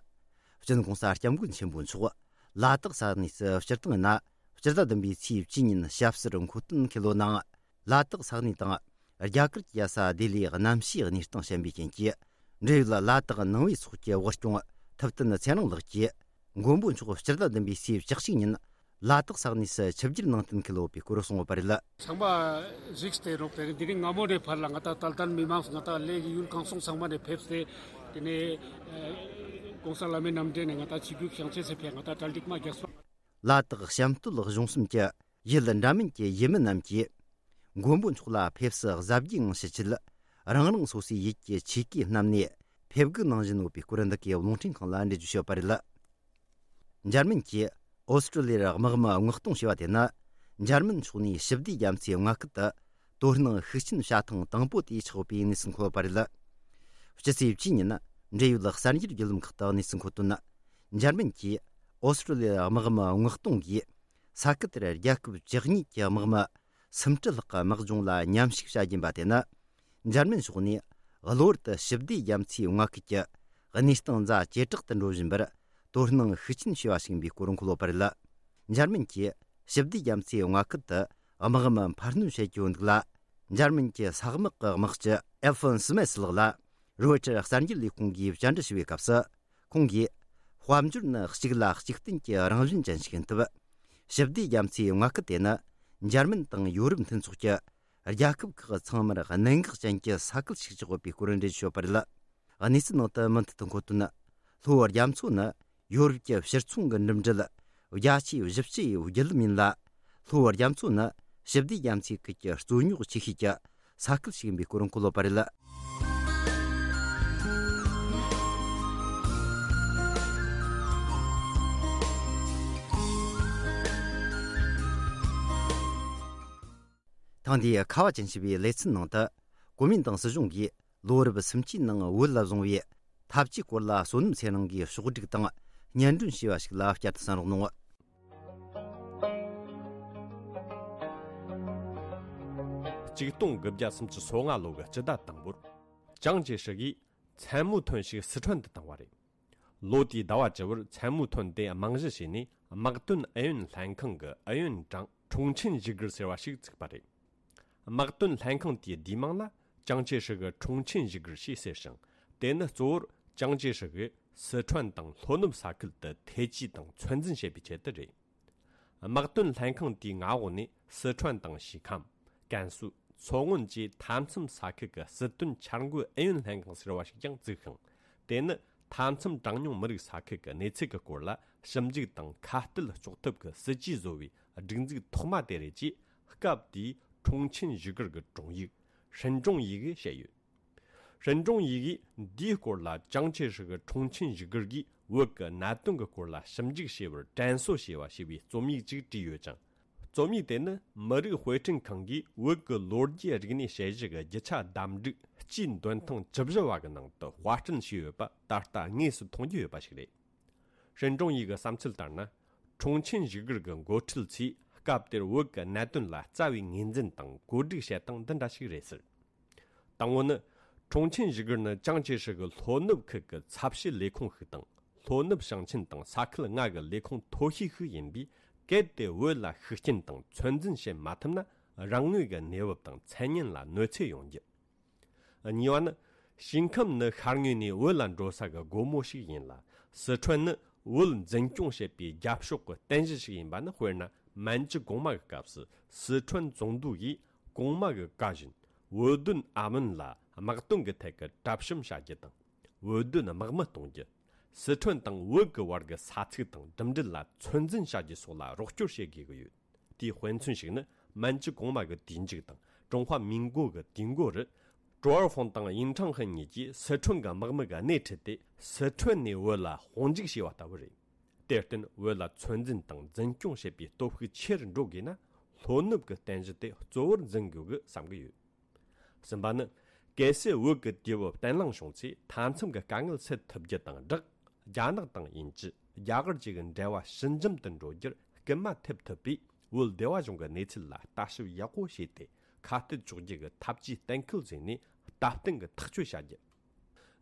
སྤྱི་ནོར་༸གོང་ས་༸སྐྱབས་མགོན་ཆེན་པོ་མཆོག་ལ་དྭགས་ས་གནས་སུ་སྤྱིར་བཏང་ཡིན་ན། སྤྱི་ཟླ་བདུན་པའི་ཚེས་བཅུ་ཉིན་ཞབས་སོར་འཁོད་དོན་ཁེལ་ལོ་ནང་། ལ་དྭགས་ས་གནས་དང་། རྒྱ་གར་གྱི་ས་ལྡི་ལིའི་གནམ་གཤིས་གནས་སྟངས་ཞན་པའི་རྐྱེན་གྱིས། འབྲེལ་ཡོད་ལ་དྭགས་ནང་པའི་ཚོགས་ཀྱི་དབུ་སྐྱོང་ཐུབ་བསྟན་ཚེ་རིང་ལགས་ཀྱིས། མགོན་པོ་མཆོག་སྤྱི་ཟླ་བདུན་པའི་ཚེས་བཅུ་གཅིག་ཉིན་ལ་དྭགས་ས་གནས་སུ་ཆིབས་བསྒྱུར་གནང་གཏན་འཁེལ་ཡོད་པའི་སྐོར་གསུངས་ཡོད་པ་རེད། ཚང་མ་གཟིགས་ཏེ་རོགས་དེ་རིང་འདི་རིང་སྔ་མོ་ནས་ཕར་ལ་ང་ད་ཏལ་ཏན་མི་མང་ང་ད་ལས་ཀྱི་ཡུལ་གང་སོང་ཚང་མ་ནས་ཕེབས་ཏེ། དེ་ནས་༸གོང་ས་བླ་མའི་རྣམ་འདྲེན་ནས་ང་ད་ཆིབས་བསྒྱུར་བྱང་ཆེ་སེ་ཕེབས་ང་ད་གྲ་སྒྲིག་མ་རྒྱག་སོང་། ལ་དྭགས་བྱམས་སྟོད་གཞུང་གསུམ་གྱི་ཡུལ་འདྲ་མིན་གྱི་ཡུལ་མི་རྣམས་ཀྱིས། མགོན་པོ་མཆོག་ལ་ཕེབས་བསུ་གཟབ་རྒྱས་ངང་ཞུ་ཆེད། རང་རང་སོ་སོའི་ཡུལ་གྱི་ཆོས་གོས་བསྣམས་ནས་ཕེབས་འགུལ་གནང་བཞིན་ཡོད་པའི་སྐོར་འདི་གའི་རླུང་འཕྲིན་ཁང་ལ་འགྲེལ་བརྗོད་ཞུས་པ་རེད། འཇར་མན་གྱིས་ཨོ་སི་ཀྲོ་ལི་ཡར་དམག་མི་མངགས་གཏོང་བྱས་པ་དེ་ནི། འཇར་མན་ཕྱོགས་ནས་ཞི་བདེའི་རྒྱ་མཚོའི་མངའ་ཁུལ་དུ་དོ་སྣང་ཤུགས་ཆེན་བྱ་ཐེངས་དང་པོ་དེ་ཆགས་ཡོད་པའི་གནས་ཚུལ་འཁོད་ཡོད་པ་རེད། སྤྱི་ཚེས་བཅུ་ཉིན་འབྲེལ་ཡོད་གསར་འགྱུར་བརྒྱུད་ལམ་ཁག་ཏུ་གནས་ཚུལ་འཁོད་དོན། འཇར་མན་གྱིས་ཨོ་སི་ཀྲོ་ལི་ཡར་དམག་མི་མངགས་གཏོང་གིས། ས་ཁུལ་དེར་རྒྱལ་ཁབ་བཅུ་གཉིས་ཀྱི་དམག་མི་སུམ་ཁྲི་ལྷག་གི་དམག་སྦྱོང་ལ་མཉམ་ཞུགས་བྱ་རྒྱུ་ཡིན་པ་དེ་ནི། འཇར་མན་ཕྱོགས་ནས་གློ་བུར་དུ་ཞི་བདེའི་རྒྱ་མཚོའི་མངའ་ཁུལ་གྱི་གནས་སྟངས་ཛ་ཇེ་དྲག་ཏུ་འགྲོ་བཞིན་པར་དོ་སྣང་ཤུགས་ཆེན་བྱས་པ་ཞིག་ཡིན་པའི་སྐོར་འཁོད་ཡོད་པ་རེད། འཇར་མན་གྱིས་ཞི་བདེའི་རྒྱ་མཚོའི་མངའ་ཁུལ་དུ་དམག་མི་འཕར་སྣོན་བྱེད་ཀྱི་ཡོད་འདུག་ལ། འཇར་མན་གྱི་ས་དམག་གི་དམག་སྤྱི་ཨེལ་ཧྥོན་སི་མེ་སི་ལགས་ལ། རོའི་ཊར་གསར་འགྱུར་ལས་ཁུངས་ཀྱིས་བཅར་འདྲི་ཞུ་བའི་སྐབས་སུ། ཁོང་གིས། དཔལ་འབྱོར་ནི་གཅིག་ལ་གཅིག་བརྟེན་གྱི་རང་བཞིན་ཅན་ཞིག་ཡིན་སྟབས། ཞི་བདེ་རྒྱ་མཚོའི་མངའ་ཁུལ་དེ་ནི། འཇར་མན་དང་ཡོ་རོབ་མཐུན་ཚོགས་ཀྱི་རྒྱལ་ཁབ་ཁག་ཚང་མར་གནད་འགག་ཅན་གྱི་ས་ཁུལ་ཞིག་ཆགས་ཡོད་པའི་སྐོར་འགྲེལ་བརྗོད་བྱས་ཡོད་པ་རེད། གནས་ཚུལ་ནང་དུ་མུ་མཐུད་དུ་འཁོད་དོན། ལྷོ་རྒྱ་མཚོ་ནི་ཡོ་རོབ་ཀྱི་ཕྱིར་ཚོང་གི་འགྲིམ་འགྲུལ་རྒྱ་ཆེའི་བཞི་བཅུ་ཡི་བརྒྱུད་ལམ་ཡིན་ལ། ལྷོ་རྒྱ་མཚོ་ནི་ཞི་བདེ་རྒྱ་མཚོའི་ཁུལ་གྱི་རྩོད་རྙོག་ཆེ་ཤོས་ཀྱི་ས་ཁུལ་ཞིག་ཡིན་པའི་སྐོར་འཁོད་ཡོད་པ་རེད། ཐེངས་འདིའི་ཁ་བ་ཅན་ཞེས་པའི་ལེ་ཚན་ནང་དུ། གོ་མིན་ཏང་སྲིད་གཞུང་གིས་ལོ་རབས་སུམ་ཅུའི་ནང་བོད་ལ་བཟུང་བའི་འཐབ་ཇུས་སྐོར་ལ་བསོད་ནམས་ཚེ་རིང་གིས་ཕྱོགས་བསྒྲིགས་དང་སྙན་སྒྲོན་ཞུས་པ་ཞིག་ལ་བསྐྱར་དུ་གསན་རོགས་གནང་། ཆིག་སྟོང་དགུ་བརྒྱ་སུམ་ཅུ་སོ་ལྔ་ལོ་གི་སྤྱི་ཟླ་དང་པོར། ཅང་ཅེ་ཧྲི་ཡིས་མཚན་མོའི་ཐོན་ཞིག་སི་ཁྲོན་དུ་བཏང་བ་རེད། ལོ་དེའི་ཟླ་བ་བཅུ་བར་མཚན་མོའི་ཐོན་དེ་རྨང་གཞི་བྱས་ནས། དམག་དོན་ཨུ་ཡོན་ལྷན་ཁང་གི་ཨུ་ཡོན་ཀྲང་ཁྲུང་ཆིན་ཞི་གིར་ཟེར་བ་ཞིག་བཙུགས་པ་རེད། དམག་དོན་ལྷན་ཁང་དེའི་བསྡུས་མིང་ལ་ཅང་ཅེ་ཧྲི་གི་ཁྲུང་ཆིན་ཞི་གིར་ཞེས་ཟེར་ཞིང་། དེ་ནི་གཙོ་བོར་ཅང་ཅེ་ཧྲི་གིས་སི་ཁྲོན་དང་ལྷོ་ནུབ་ས་ཁུལ་དུ་ཐེ་ཇུས་དང་ཚོད་འཛིན་བྱེད་པའི་ཆེད་དུ་རེད། དམག་དོན་ལྷན་ཁང་དེའི་མངའ་འོག་ནས་སི་ཁྲོན་དང་ཞི་ཁམས། ཀན་སུའུ། མཚོ་སྔོན་བཅས་མཐའ་མཚམས་ས་ཁུལ་གྱི་སྲིད་དོན་འཆར་འགོད་ཨུ་ཡོན་ལྷན་ཁང་ཟེར་བ་ཞིག་ཀྱང་བཙུགས་ཤིང་། དེ་ནི་མཐའ་མཚམས་གྲངས་ཉུང་མི་རིགས་ས་ཁུལ་གྱི་གནས་ཚུལ་གྱི་སྐོར་ལ་ཞིབ་འཇུག་དང་ཁ་གཏད་གཅོག་ཐབས་ཀྱི་སྲིད་ཇུས་བཟོ་བའི་སྒྲིག་འཛུགས་ཐོག་མ་དེ་རེད་ཅེས། སྐབས་དེའི་ཁྲུང་ཆིན་ཞི་གིར་གྱི་དྲུང་ཡིག་ཧྲིན་ཀྲུང་ཡི་གིས་བཤད་ཡོད། ཧྲིན་ཀྲུང་ཡི་གིས་འདིའི་སྐོར་ལ་ཅང་ཅེ་ཧྲི་གི་ཁྲུང་ཆིན་ཞི་གིར་གྱིས་བོད་ཀྱི་གནད་དོན་གྱི་སྐོར་ལ་ཞིབ་འཇུག་བྱས་པར་དྲན་གསོ་ཞེས་པ་ཞེས་པའི་རྩོམ་ཡིག་ཅིག་བྲིས་ཡོད་ཅིང་། རྩོམ་ཡིག་དེ་ནི་མི་རིགས་དཔེ་སྐྲུན་ཁང་གིས་བོད་ཀྱི་ལོ་རྒྱུས་རིག་གནས་དཔྱད་གཞི་གི་རྒྱུ་ཆ་བདམས་སྒྲིག་སྤྱིའི་འདོན་ཐེངས་བཅུ་བཞི་བ་གི་ནང་དུ་དཔར་སྐྲུན་བྱས་ཡོད་པ་ད་ལྟ་དངོས་སུ་མཐོང་རྒྱུ་ཡོད་པ་ཞིག་རེད། ཧྲིན་ཀྲུང་ཡི་གི་བསམ་ཚུལ་ལྟར་ན། ཁྲུང་ཆིན་ཞི་གིར་གྱི་འགོ་ཁྲིད་ཚོས་སྐབས་དེར་བོད་ཀྱི་གནད་དོན་ལ་རྩ་བའི་ངོས་འཛིན་དང་བཀོད་སྒྲིག་བྱེད་སྟངས་འདི་འདྲ་ཞིག་རེད་ཟེར། དང་པོ་ནི། ཁྲུང་ཆིན་ཞི་གིར་ནི་ཅང་ཅེ་ཧྲི་གི་ལྷོ་ནུབ་ཁུལ་གྱི་ཚབ་བྱེད་ལས་ཁུངས་ཤིག་དང་། ལྷོ་ནུབ་ཞིང་ཆེན་དང་ས་ཁུལ་ལྔ་གི་ལས་ཁུངས་མཐོ་ཤོས་ཤིག་ཡིན་པས། གལ་ཏེ་བོད་ལ་ཤུགས་རྐྱེན་དང་ཚོད་འཛིན་བྱེད་མ་ཐུབ་ན། རང་ངོས་ཀྱི་གནས་བབ་དང་མཚན་སྙན་ལ་གནོད་འཚེ་ཡོང་རྒྱུ། གཉིས་པ་ནི། ཞིང་ཁམས་ནི་ཤར་ངོས་ནས་བོད་ལ་འགྲོ་ས་གི་སྒོ་མོ་ཞིག་ཡིན་ལ། སི་ཁྲོན་ནི་བོད་འཛིན་སྐྱོང་བྱེད་པའི་རྒྱབ་ཕྱོགས་ཀྱི་རྟེན་གཞི་ཞིག་ཡིན་པ་ནི། དཔེར་ན། མན་ཇུ་གོང་མ་གི་སྐབས་སུ་སི་ཁྲོན་ཙུང་ཏུའུ་ཡིས་གོང་མ་གི་བཀའ་བཞིན། བོད་དོན་ཨ་མོན་ལ་དམག་དོན་གྱི་ཐད་ཀྱི་གྲབས་གཤོམ་བྱ་རྒྱུ་དང་། བོད་དོན་དམག་མི་གཏོང་རྒྱུ། སི་ཁྲོན་དང་བོད་ཀྱི་བར་གྱི་ས་ཚིགས་དང་འགྲིམ་འགྲུལ་ལ་ཚོད་འཛིན་བྱ་རྒྱུ་སོགས་ལ་རོགས་སྐྱོར་བྱེད་དགོས་ཀྱི་ཡོད། དེའི་དཔེ་མཚོན་ཞིག་ནི། མན་ཇུ་གོང་མ་གི་དུས་མཇུག་དང་ཀྲུང་ཧྭ་མིན་གོ་གི་དུས་འགོ་རུ། ཀྲོའུ་ཧྥང་དང་ཡིན་ཁྲང་ཧན་གཉིས་ཀྱིས་སི་ཁྲོན་གྱི་དམག་མི་གི་སྣེ་ཁྲིད་དེ། སི་ཁྲོན་ནས་བོད་ལ་དཔུང་འཇུག་བྱས་པ་ལྟ་བུ་རེད། དེར་བརྟེན། བོད་ལ་ཚོད་འཛིན་དང་འཛིན་སྐྱོང་བྱེད་པའི་སྟོབས་ཤུགས་ཆེ་རུ་འགྲོ་དགོས་ན། ལྷོ་ནུབ་ཀྱི་རྟེན་གཞི་དེ་གཙོ་བོར་འཛིན་དགོས་ཀྱི་བསམ་གྱི་ཡོད། གསུམ་པ་ནི། གལ་སྲིད་བོད་ཀྱི་དུས་བབ་བརྟན་ལྷིང་བྱུང་ཚེ། མཐའ་མཚམས་ཀྱི་དཀའ་ངལ་སེལ་ཐུབ་རྒྱུ་དང་སྦྲགས། རྒྱ་ནག་དང་དབྱིན་ཇི། རྒྱ་གར་བཅས་ཀྱི་འབྲེལ་བ་ཞི་འཇམ་དུ་འགྲོ་རྒྱུར་སྐུལ་མ་ཐེབས་ཐུབ་པས། བོད་སྡེ་བ་གཞུང་གི་གནས་ཚུལ་ལ་ལྟ་ཞིབ་ཡག་པོ་བྱས་ཏེ། ཁ་གཏད་གཅོག་རྒྱུ་གི་ཐབས་ཇུས་གཏན་འཁེལ་བཟོས་ནས། སྟབས་བསྟུན་གྱི་ཐག་གཅོད་བྱ་རྒྱུ།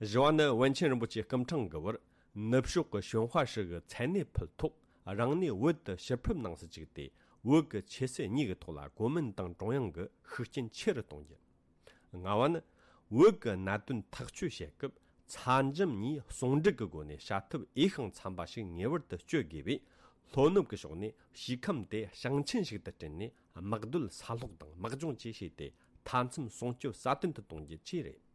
བཞི་བ་ནི། པཎ་ཆེན་རིན་པོ་ཆེ་སྐུ་ཕྲེང་གི་བར་ནུབ་ཕྱོགས་ཀྱི་ཞོན་ཧྭ་ཧྲི་གི་མཚན་གནས་ཕུལ་ཐོག་རང་གནས་བོད་དུ་ཕྱིར་ཕེབས་གནང་སྲིད་ཅིག་སྟེ། བོད་ཀྱི་ཆོས་སྲིད་གཉིས་ཀྱི་ཐོག་ལ་གོ་མིན་ཏང་ཀྲུང་དབྱང་གི་ཤུགས་རྐྱེན་ཆེ་རུ་གཏོང་རྒྱུ། ལྔ་བ་ནི། བོད་ཀྱི་གནད་དོན་ཐག་གཅོད་བྱེད་སྐབས། ཚ་འཇམ་གཉིས་ཟུང་འབྲེལ་གྱི་སྒོ་ནས་བྱ་ཐབས་འོས་ཤིང་འཚམ་པ་ཞིག་ངེས་པར་དུ་སྤྱོད་དགོས་པས། ལྷོ་ནུབ་ཀྱི་ཕྱོགས་ནས་ཞི་ཁམས་དེ་ཞིང་ཆེན་ཞིག་ཏུ་བསྐྲུན་ནས། དམག་སྡོད་ས་སློག་དང་དམག་སྦྱོང་བཅས་བྱས་ཏེ། མཐའ་མཚམས་སྲུང་སྐྱོབ་སྲ་བརྟན་དུ་གཏོང་རྒྱུ་བཅས་རེད།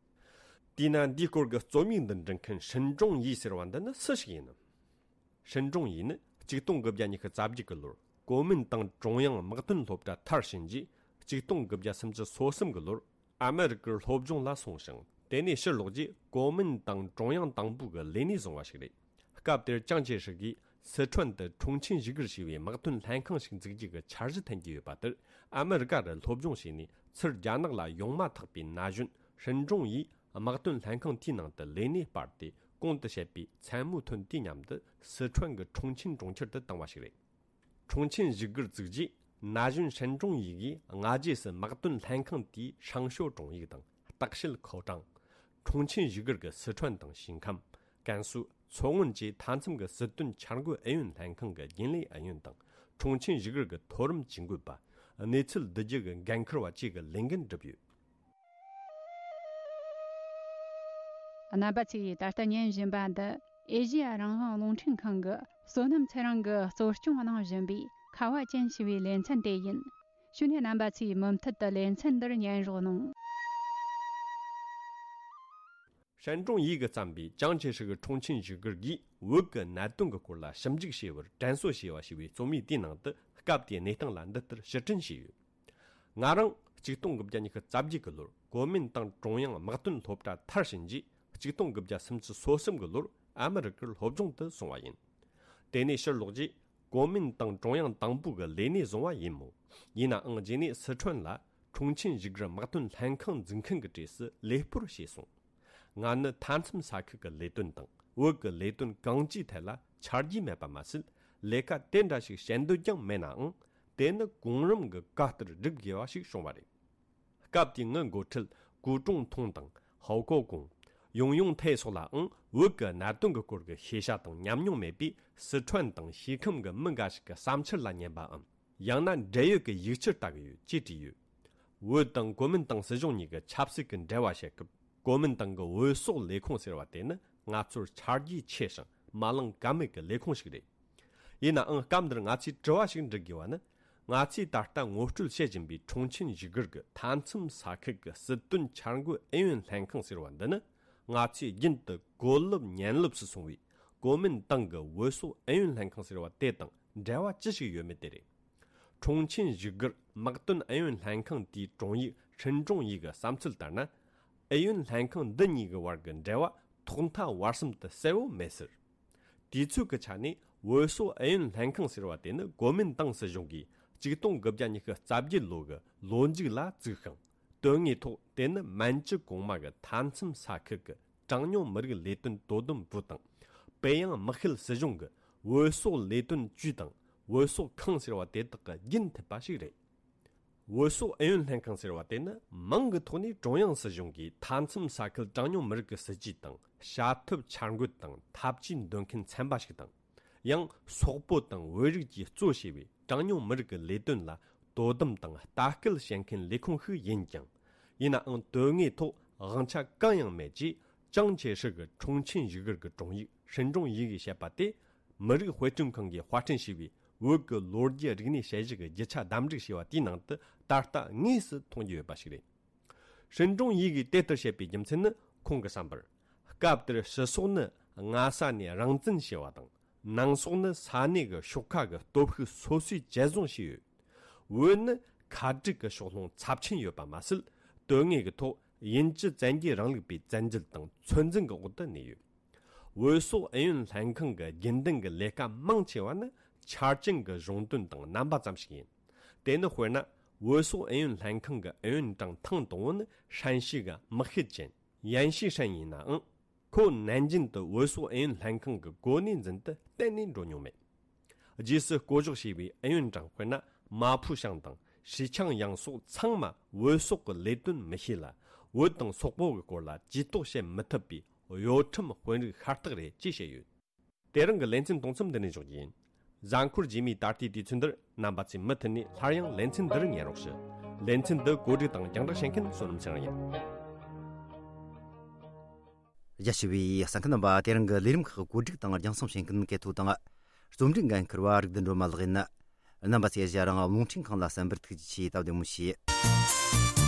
དེས་ན། འདིའི་སྐོར་གྱི་རྩོམ་ཡིག་འདི་འབྲི་མཁན་ཧྲིན་ཀྲུང་ཡི་ཟེར་བ་འདི་ནི་སུ་ཞིག་ཡིན་ནམ། ཧྲིན་ཀྲུང་ཡི་ནི་ཆིག་སྟོང་དགུ་བརྒྱ་ཉི་ཤུ་རྩ་བརྒྱད་ཀྱི་ལོར་གོ་མིན་ཏང་ཀྲུང་དབྱང་དམག་དོན་སློབ་གྲྭ་མཐར་ཕྱིན་རྗེས། ཆིག་སྟོང་དགུ་བརྒྱ་སུམ་ཅུ་སོ་གསུམ་གྱི་ལོར་ཨ་མེ་རི་ཀར་སློབ་སྦྱོང་ལ་སོང་ཞིང་། དེ་ནས་ཕྱིར་ལོག་རྗེས་གོ་མིན་ཏང་ཀྲུང་དབྱང་དང་པོ་གི་ལས་གནས་བཟུང་བ་ཞིག་རེད། སྐབས་དེར་ཅང་ཅེ་ཧྲི་གིས་སི་ཁྲོན་དུ་ཁྲུང་ཆིན་ཞི་གིར་ཞེས་པའི་དམག་དོན་ལྷན་ཁང་ཞིག་འཛུགས་རྒྱུ་གི་འཆར་གཞི་འཐེན་གྱི་ཡོད་པ་དེར། ཨ་མེ་རི་ཀ་རུ་སློབ་སྦྱོང་བྱས་ནས་ཚུར་རྒྱ་ནག་ལ་ཡོང་མ་ཐག་པའི་ན་གཞོན་ཧྲིན་ཀྲུང་ཡིས་དམག་དོན་ལྷན་ཁང་དེའི་ནང་དུ་ལས་གནས་སྤར་ཏེ། གོང་དུ་བཤད་པའི་མཚན་མོའི་ཐོན་དུས་མཉམ་དུ་སི་ཁྲོན་གྱི་ཁྲུང་ཆིན་གྲོང་ཁྱེར་དུ་བཏང་བ་ཞིག་རེད། ཁྲུང་ཆིན་ཞི་གིར་བཙུགས་རྗེས། ན་གཞོན་ཧྲིན་ཀྲུང་ཡི་གིས་སྔ་རྗེས་སུ་དམག་དོན་ལྷན་ཁང་དེའི་ཧྲང་ཤོ་གྲོང་ཡིག་དང་བརྟག་དཔྱད་ཁའོ་ཀྲང་། ཁྲུང་ཆིན་ཞི་གིར་གྱི་སི་ཁྲོན་དང་ཞིང་ཁམས། ཀན་སུའུ། མཚོ་སྔོན་བཅས་མཐའ་མཚམས་ཀྱི་སྲིད་དོན་འཆར་འགོད་ཨུ་ཡོན་ལྷན་ཁང་གི་རྒྱུན་ལས་ཨུ་ཡོན་དང་། ཁྲུང་ཆིན་ཞི་གིར་གྱི་མཐོ་རིམ་ཇུས་འགོད་པ། གནས་ཚུལ་བསྡུ་རྒྱུ་གི་འགན་འཁུར་བ་བཅས་ཀྱི་ལས་འགན་བསྒྲུབས་ཡོད། རྣམ་པ་ཚོས་ད་ལྟ་ཉན་བཞིན་པ་འདི་ཨེ་ཤེ་ཡ་རང་དབང་རླུང་འཕྲིན་ཁང་གི་བསོད་ནམས་ཚེ་རིང་གིས་གཙོ་སྐྱོང་གནང་བཞིན་པའི་ཁ་བ་ཅན་ཞེས་པའི་ལེ་ཚན་དེ་ཡིན། ཞུ་ནས་རྣམ་པ་ཚོས་མུ་མཐུད་དུ་ལེ་ཚན་འདིར་ཉན་རོགས་གནང་། ཧྲན་ཀྲུང་ཡི་གིས་བརྩམས་པའི་ཅང་ཅེ་ཧྲི་གི་ཁྲུང་ཆིན་བཞུགས་སྒར་གྱིས་བོད་ཀྱི་གནད་དོན་གྱི་སྐོར་ལ་ཞིབ་འཇུག་བྱས་པར་དྲན་གསོ་ཞེས་པ་ཞེས་པའི་རྩོམ་ཡིག་དེའི་ནང་དུ་སྐབས་དེའི་གནས་སྟངས་ལ་འདི་ལྟར་ཕྱིར་དྲན་བྱས་ཡོད། ང་རང་ཆིག་སྟོང་དགུ་བརྒྱ་ཉི་ཤུ་རྩ་བརྒྱད་ཀྱི་ལོར་གོ་མིན་ཏང་ཀྲུང་དབྱང་དམག་དོན་སློབ་གྲྭ་མཐར་ཕྱིན་རྗེས་ཆིག་སྟོང་དགུ་བརྒྱ་སུམ་ཅུ་སོ་གསུམ་གྱི་ལོར་ཨ་མི་རི་ཀར་སློབ་སྦྱོང་དུ་སོང་བ་ཡིན། དེ་ནས་ཕྱིར་ལོག་རྗེས་གོ་མིན་ཏང་ཀྲུང་དབྱང་དང་པོ་གི་ལས་སྣེ་བཟུང་བ་ཡིན་མོད། ཡིན་ནའང་རྗེས་ནས་སི་ཁྲོན་ལ་ཁྲུང་ཆིན་བཞུགས་སྒར་དམག་དོན་ལྷན་ཁང་འཛུགས་མཁན་གྱི་གྲས་སུ་ལས་སྤོར་བྱས་སོང་། ང་ནི་མཐའ་མཚམས་ས་ཁུལ་གྱི་ལས་དོན་དང་བོད་ཀྱི་ལས་དོན་གང་ཅིའི་ཐད་ལ་ཆ་རྒྱུས་མེད་པ་མ་ཟད། ལས་ཀ་དེ་འདྲ་ཞིག་བྱེད་འདོད་ཀྱང་མེད་ནའང་། དེ་ནི་གོང་རིམ་གྱི་བཀའ་ལྟར་སྒྲུབ་དགོས་པ་ཞིག་བྱུང་བ་རེད། སྐབས་དེའི་ངའི་འགོ་ཁྲིད་ཀུའུ་ཀྲུང་ཐུང་དང་ཧའོ་ཀོ་ཀུང་། ཡུང་ཡུང་ཐའེ་སོགས་ལའང་བོད་ཀྱི་གནད་དོན་གྱི་སྐོར་གྱི་ཤེས་བྱ་དང་ཉམས་མྱོང་མེད་པས། སི་ཁྲོན་དང་ཤིས་ཁམས་ཀྱི་མི་འགའ་ཞིག་གི་བསམ་འཆར་ལ་ཉན་པའམ། ཡང་ན་འབྲེལ་ཡོད་ཀྱི་ཡིག་ཆར་ལྟ་གི་ཡོད་ཅེས་བྲིས་ཡོད། བོད་དང་གོ་མིན་ཏང་སྲིད་གཞུང་གཉིས་ཀྱི་ཆབ་སྲིད་ཀྱི་འབྲེལ་བ་བཤད་སྐབས། གོ་མིན་ཏང་གི་བོད་སོག་ལས་ཁུངས་ཟེར་བ་དེ་ནི་ང་ཚོར་ཆ་རྒྱུས་ཆེ་ཞིང་མ་བླངས་ཀ་མེད་ཀྱི་ལས་ཁུངས་ཤིག་རེད། ཡིན་ནའང་སྐབས་འདིར་ང་ཚོས་དྲི་བ་ཞིག་འདྲི་དགོས་པ་ནི། ང་ཚོས་ད་ལྟ་ངོ་སྤྲོད་བྱེད་བཞིན་པའི་ཁྲུང་ཆིན་བཞུགས་སྒར་གྱི་མཐའ་མཚམས་ས་ཁུལ་གྱི་སྲིད་དོན་འཆར་འགོད་ཨུ་ཡོན་ལྷན་ཁང་ཟེར་བ་འདི་ནི། ང་ཚོས་རྒྱུན་དུ་གོ་ལོབ་ཉན་ལོབ་སུ་སོང་བའི་གོ་མིན་ཏང་གི་བོད་སོག་ཨུ་ཡོན་ལྷན་ཁང་ཟེར་བ་དེ་དང་འབྲེལ་བ་ཅི་ཞིག་ཡོད་མེད་དེ་རེད། ཁྲུང་ཆིན་བཞུགས་སྒར་དམག་དོན་ཨུ་ཡོན་ལྷན་ཁང་དེའི་དྲུང་ཡིག་ཧྲིན་ཀྲུང་ཡི་གི་བསམ་ཚུལ་ལྟར་ན། ཨུ་ཡོན་ལྷན་ཁང་འདི་གཉིས་ཀྱི་བར་གྱི་འབྲེལ་བ་ཐོག་མཐའ་བར་གསུམ་དུ་གསལ་བོ་མེད་ཟེར། དུས་ཚོད་ཀྱི་ཆ་ནས་བོད་སོག་ཨུ་ཡོན་ལྷན་ཁང་ཟེར་བ་དེ་ནི་གོ་མིན་ཏང་སྲིད་གཞུང་གིས་ཆིག་སྟོང་དགུ་བརྒྱ་ཉི་ཤུ་རྩ་བརྒྱད་ལོ་གི་ལོ་མཇུག་ལ་བཙུགས་ཤིང་། དོན་དངོས་ཐོག་དེ་ནི་མན་ཇུ་གོང་མ་གི་མཐའ་མཚམས་ས་ཁུལ་གྱི་གྲངས་ཉུང་མི་རིགས་ལས་དོན་དོ་དམ་པུའུ་དང་། པེ་ཡང་དམག་ཁུལ་སྲིད་གཞུང་གི་བོད་སོག་ལས་དོན་ཅུས་དང་བོད་སོག་ཁང་ཟེར་བ་དེ་དག་གི་རྒྱུན་མཐུད་པ་ཞིག་རེད། བོད་སོག་ཨུ་ཡོན་ལྷན་ཁང་ཟེར་བ་དེ་ནི་མིང་གི་ཐོག་ནས་ཀྲུང་དབྱང་སྲིད་གཞུང་གིས་མཐའ་མཚམས་ས་ཁུལ་གྲངས་ཉུང་མི་རིགས་ཀྱི་སྲིད་ཇུས་དང་བྱ་ཐབས་འཆར་འགོད་དང་ཐབས་ཇུས་འདོན་མཁན་ཚན་པ་ཞིག་དང་། ཡང་སོག་པོ་དང་བོད་རིགས་ཀྱིས་གཙོ་བྱས་པའི་གྲངས་ཉུང་མི་རིགས་ཀྱི་ལས་དོན་ལ་དོ་དམ་དང་ལྟ་སྐུལ་བྱེད་མཁན་ལས་ཁུངས་ཤིག་ཡིན་ཀྱང་། ཡིན་ནའང་དོན་དངོས་ཐོག་དབང་ཆ་གང་ཡང་མེད་ཅེས་ཅང་ཅེ་ཧྲི་གི་ཁྲུང་ཆིན་བཞུགས་སྒར་གྱི་དྲུང་ཡིག་ཧྲིན་ཀྲུང་ཡི་གིས་བཤད་པ་དེ། མི་རིགས་དཔེ་སྐྲུན་ཁང་གིས་དཔར་སྐྲུན་བྱས་པའི་བོད་ཀྱི་ལོ་རྒྱུས་རིག་གནས་དཔྱད་གཞི་གི་རྒྱུ་ཆ་བདམས་བསྒྲིགས་བྱས་པ་དེའི་ནང་དུ་ད་ལྟ་དངོས་སུ་མཐོང་རྒྱུ་ཡོད་པ་ཞིག་རེད། ཧྲིན་ཀྲུང་ཡི་གིས་དེ་ལྟར་བཤད་པའི་རྒྱུ་མཚན་ནི། ཁོང་གི་བསམ་པར། སྐབས་དེར་ཕྱི་སོག་ནི་སྔ་ས་ནས་རང་བཙན་བྱས་པ་དང་། ནང་སོག་ནི་ས་གནས་ཀྱི་ཤོག་ཁག་གི་སྟོབས་ཤུགས་སོ་སོས་བཅད་བཟུང་བྱས་ཡོད། བོད་ནི་ཁ་བྲལ་གྱི་ཕྱོགས་ལྷུང་ཚབས་ཆེན་ཡོད་པ་མ་ཟད། དོན་དངོས་ཀྱི་ཐོག་དབྱིན་ཇི་བཙན་རྒྱལ་རིང་ལུགས་པའི་བཙན་འཛུལ་དང་ཚོད་འཛིན་གྱི་འོག་ཏུ་གནས་ཡོད། བོད་སོག་ཨུ་ཡོན་ལྷན་ཁང་གི་རྒྱུན་ལྡན་གྱི་ལས་ཀ་མང་ཆེ་བ་ནི་ཆ་རྐྱེན་གྱི་གཞུང་དོན་དང་རྣམ་པ་ཙམ་ཞིག་ཡིན། དེ་ནི་དཔེར་ན། བོད་སོག་ཨུ་ཡོན་ལྷན་ཁང་གི་ཨུ་ཡོན་ཀྲང་ཐེངས་དང་པོ་ནི་ཧྲན་ཞི་གི་དམག་ཤེད་ཅན་ཡན་ཤི་ཧྲན་ཡིན་ནའང་། ཁོ་ནན་ཅིན་དུ་བོད་སོག་ཨུ་ཡོན་ལྷན་ཁང་གི་གོ་གནས་འཛིན་དུ་གཏན་ནས་འགྲོ་མྱོང་མེད། རྗེས་སུ་བསྐོ་གཞག་བྱས་པའི་ཨུ་ཡོན་ཀྲང་དཔེར་ན། མ་ཕུ་ཞང་དང་ཧྲི་ཆང་ཡང་སོགས་ཚང་མ་བོད་སོག་གི་ལས་དོན་མི་ཤེས་ལ། བོད་དང་སོག་པོ་གི་སྐོར་ལ་ཇུས་གཏོགས་བྱེད་མི་ཐུབ་པའི་གཡོ་ཁྲམ་དཔོན་རིགས་ཤ་སྟག་རེད་ཅེས་བཤད་ཡོད། དེ་རིང་གི་ལེ་ཚན་གཏོང་མཚམས་འདི་ནས་འཇོག་རྒྱུ་ཡིན། གཟའ་འཁོར་རྗེས་མའི་ད་ལྟའི་དུས་ཚོད་འདིར་རྣམ་པ་ཚོས་མུ་མཐུད་ནས་སླར་ཡང་ལེ་ཚན་འདི་རུ་ཉན་རོགས་ཞུ། ལེ་ཚན་འདི་གོ་སྒྲིག་དང་རྒྱང་བསྒྲགས་བྱེད་མཁན་བསོད་ནམས་ཚེ་རིང་ཡིན། རྒྱ་ཆེ་བའི་གསན་མཁན་རྣམ་པ། དེ་རིང་གི་ལས་རིམ་ཁག་གོ་སྒྲིག་དང་རྒྱང་སྲིང་བྱེད་མཁན་གལ་ཐོ་དང་། རྩོམ་སྒྲིག་འགན་འཁུར་བ་རིག་ལྡན་སྒྲོལ་མ་ལགས་ཡིན། རྣམ་པ་ཚོས་གཞན་རང་རླུང་འཕྲིན་ཁང་ལ་གསན་པར་ཐུགས་རྗེ་ཆེ། སྟབས་བདེ་མོ་བྱོས།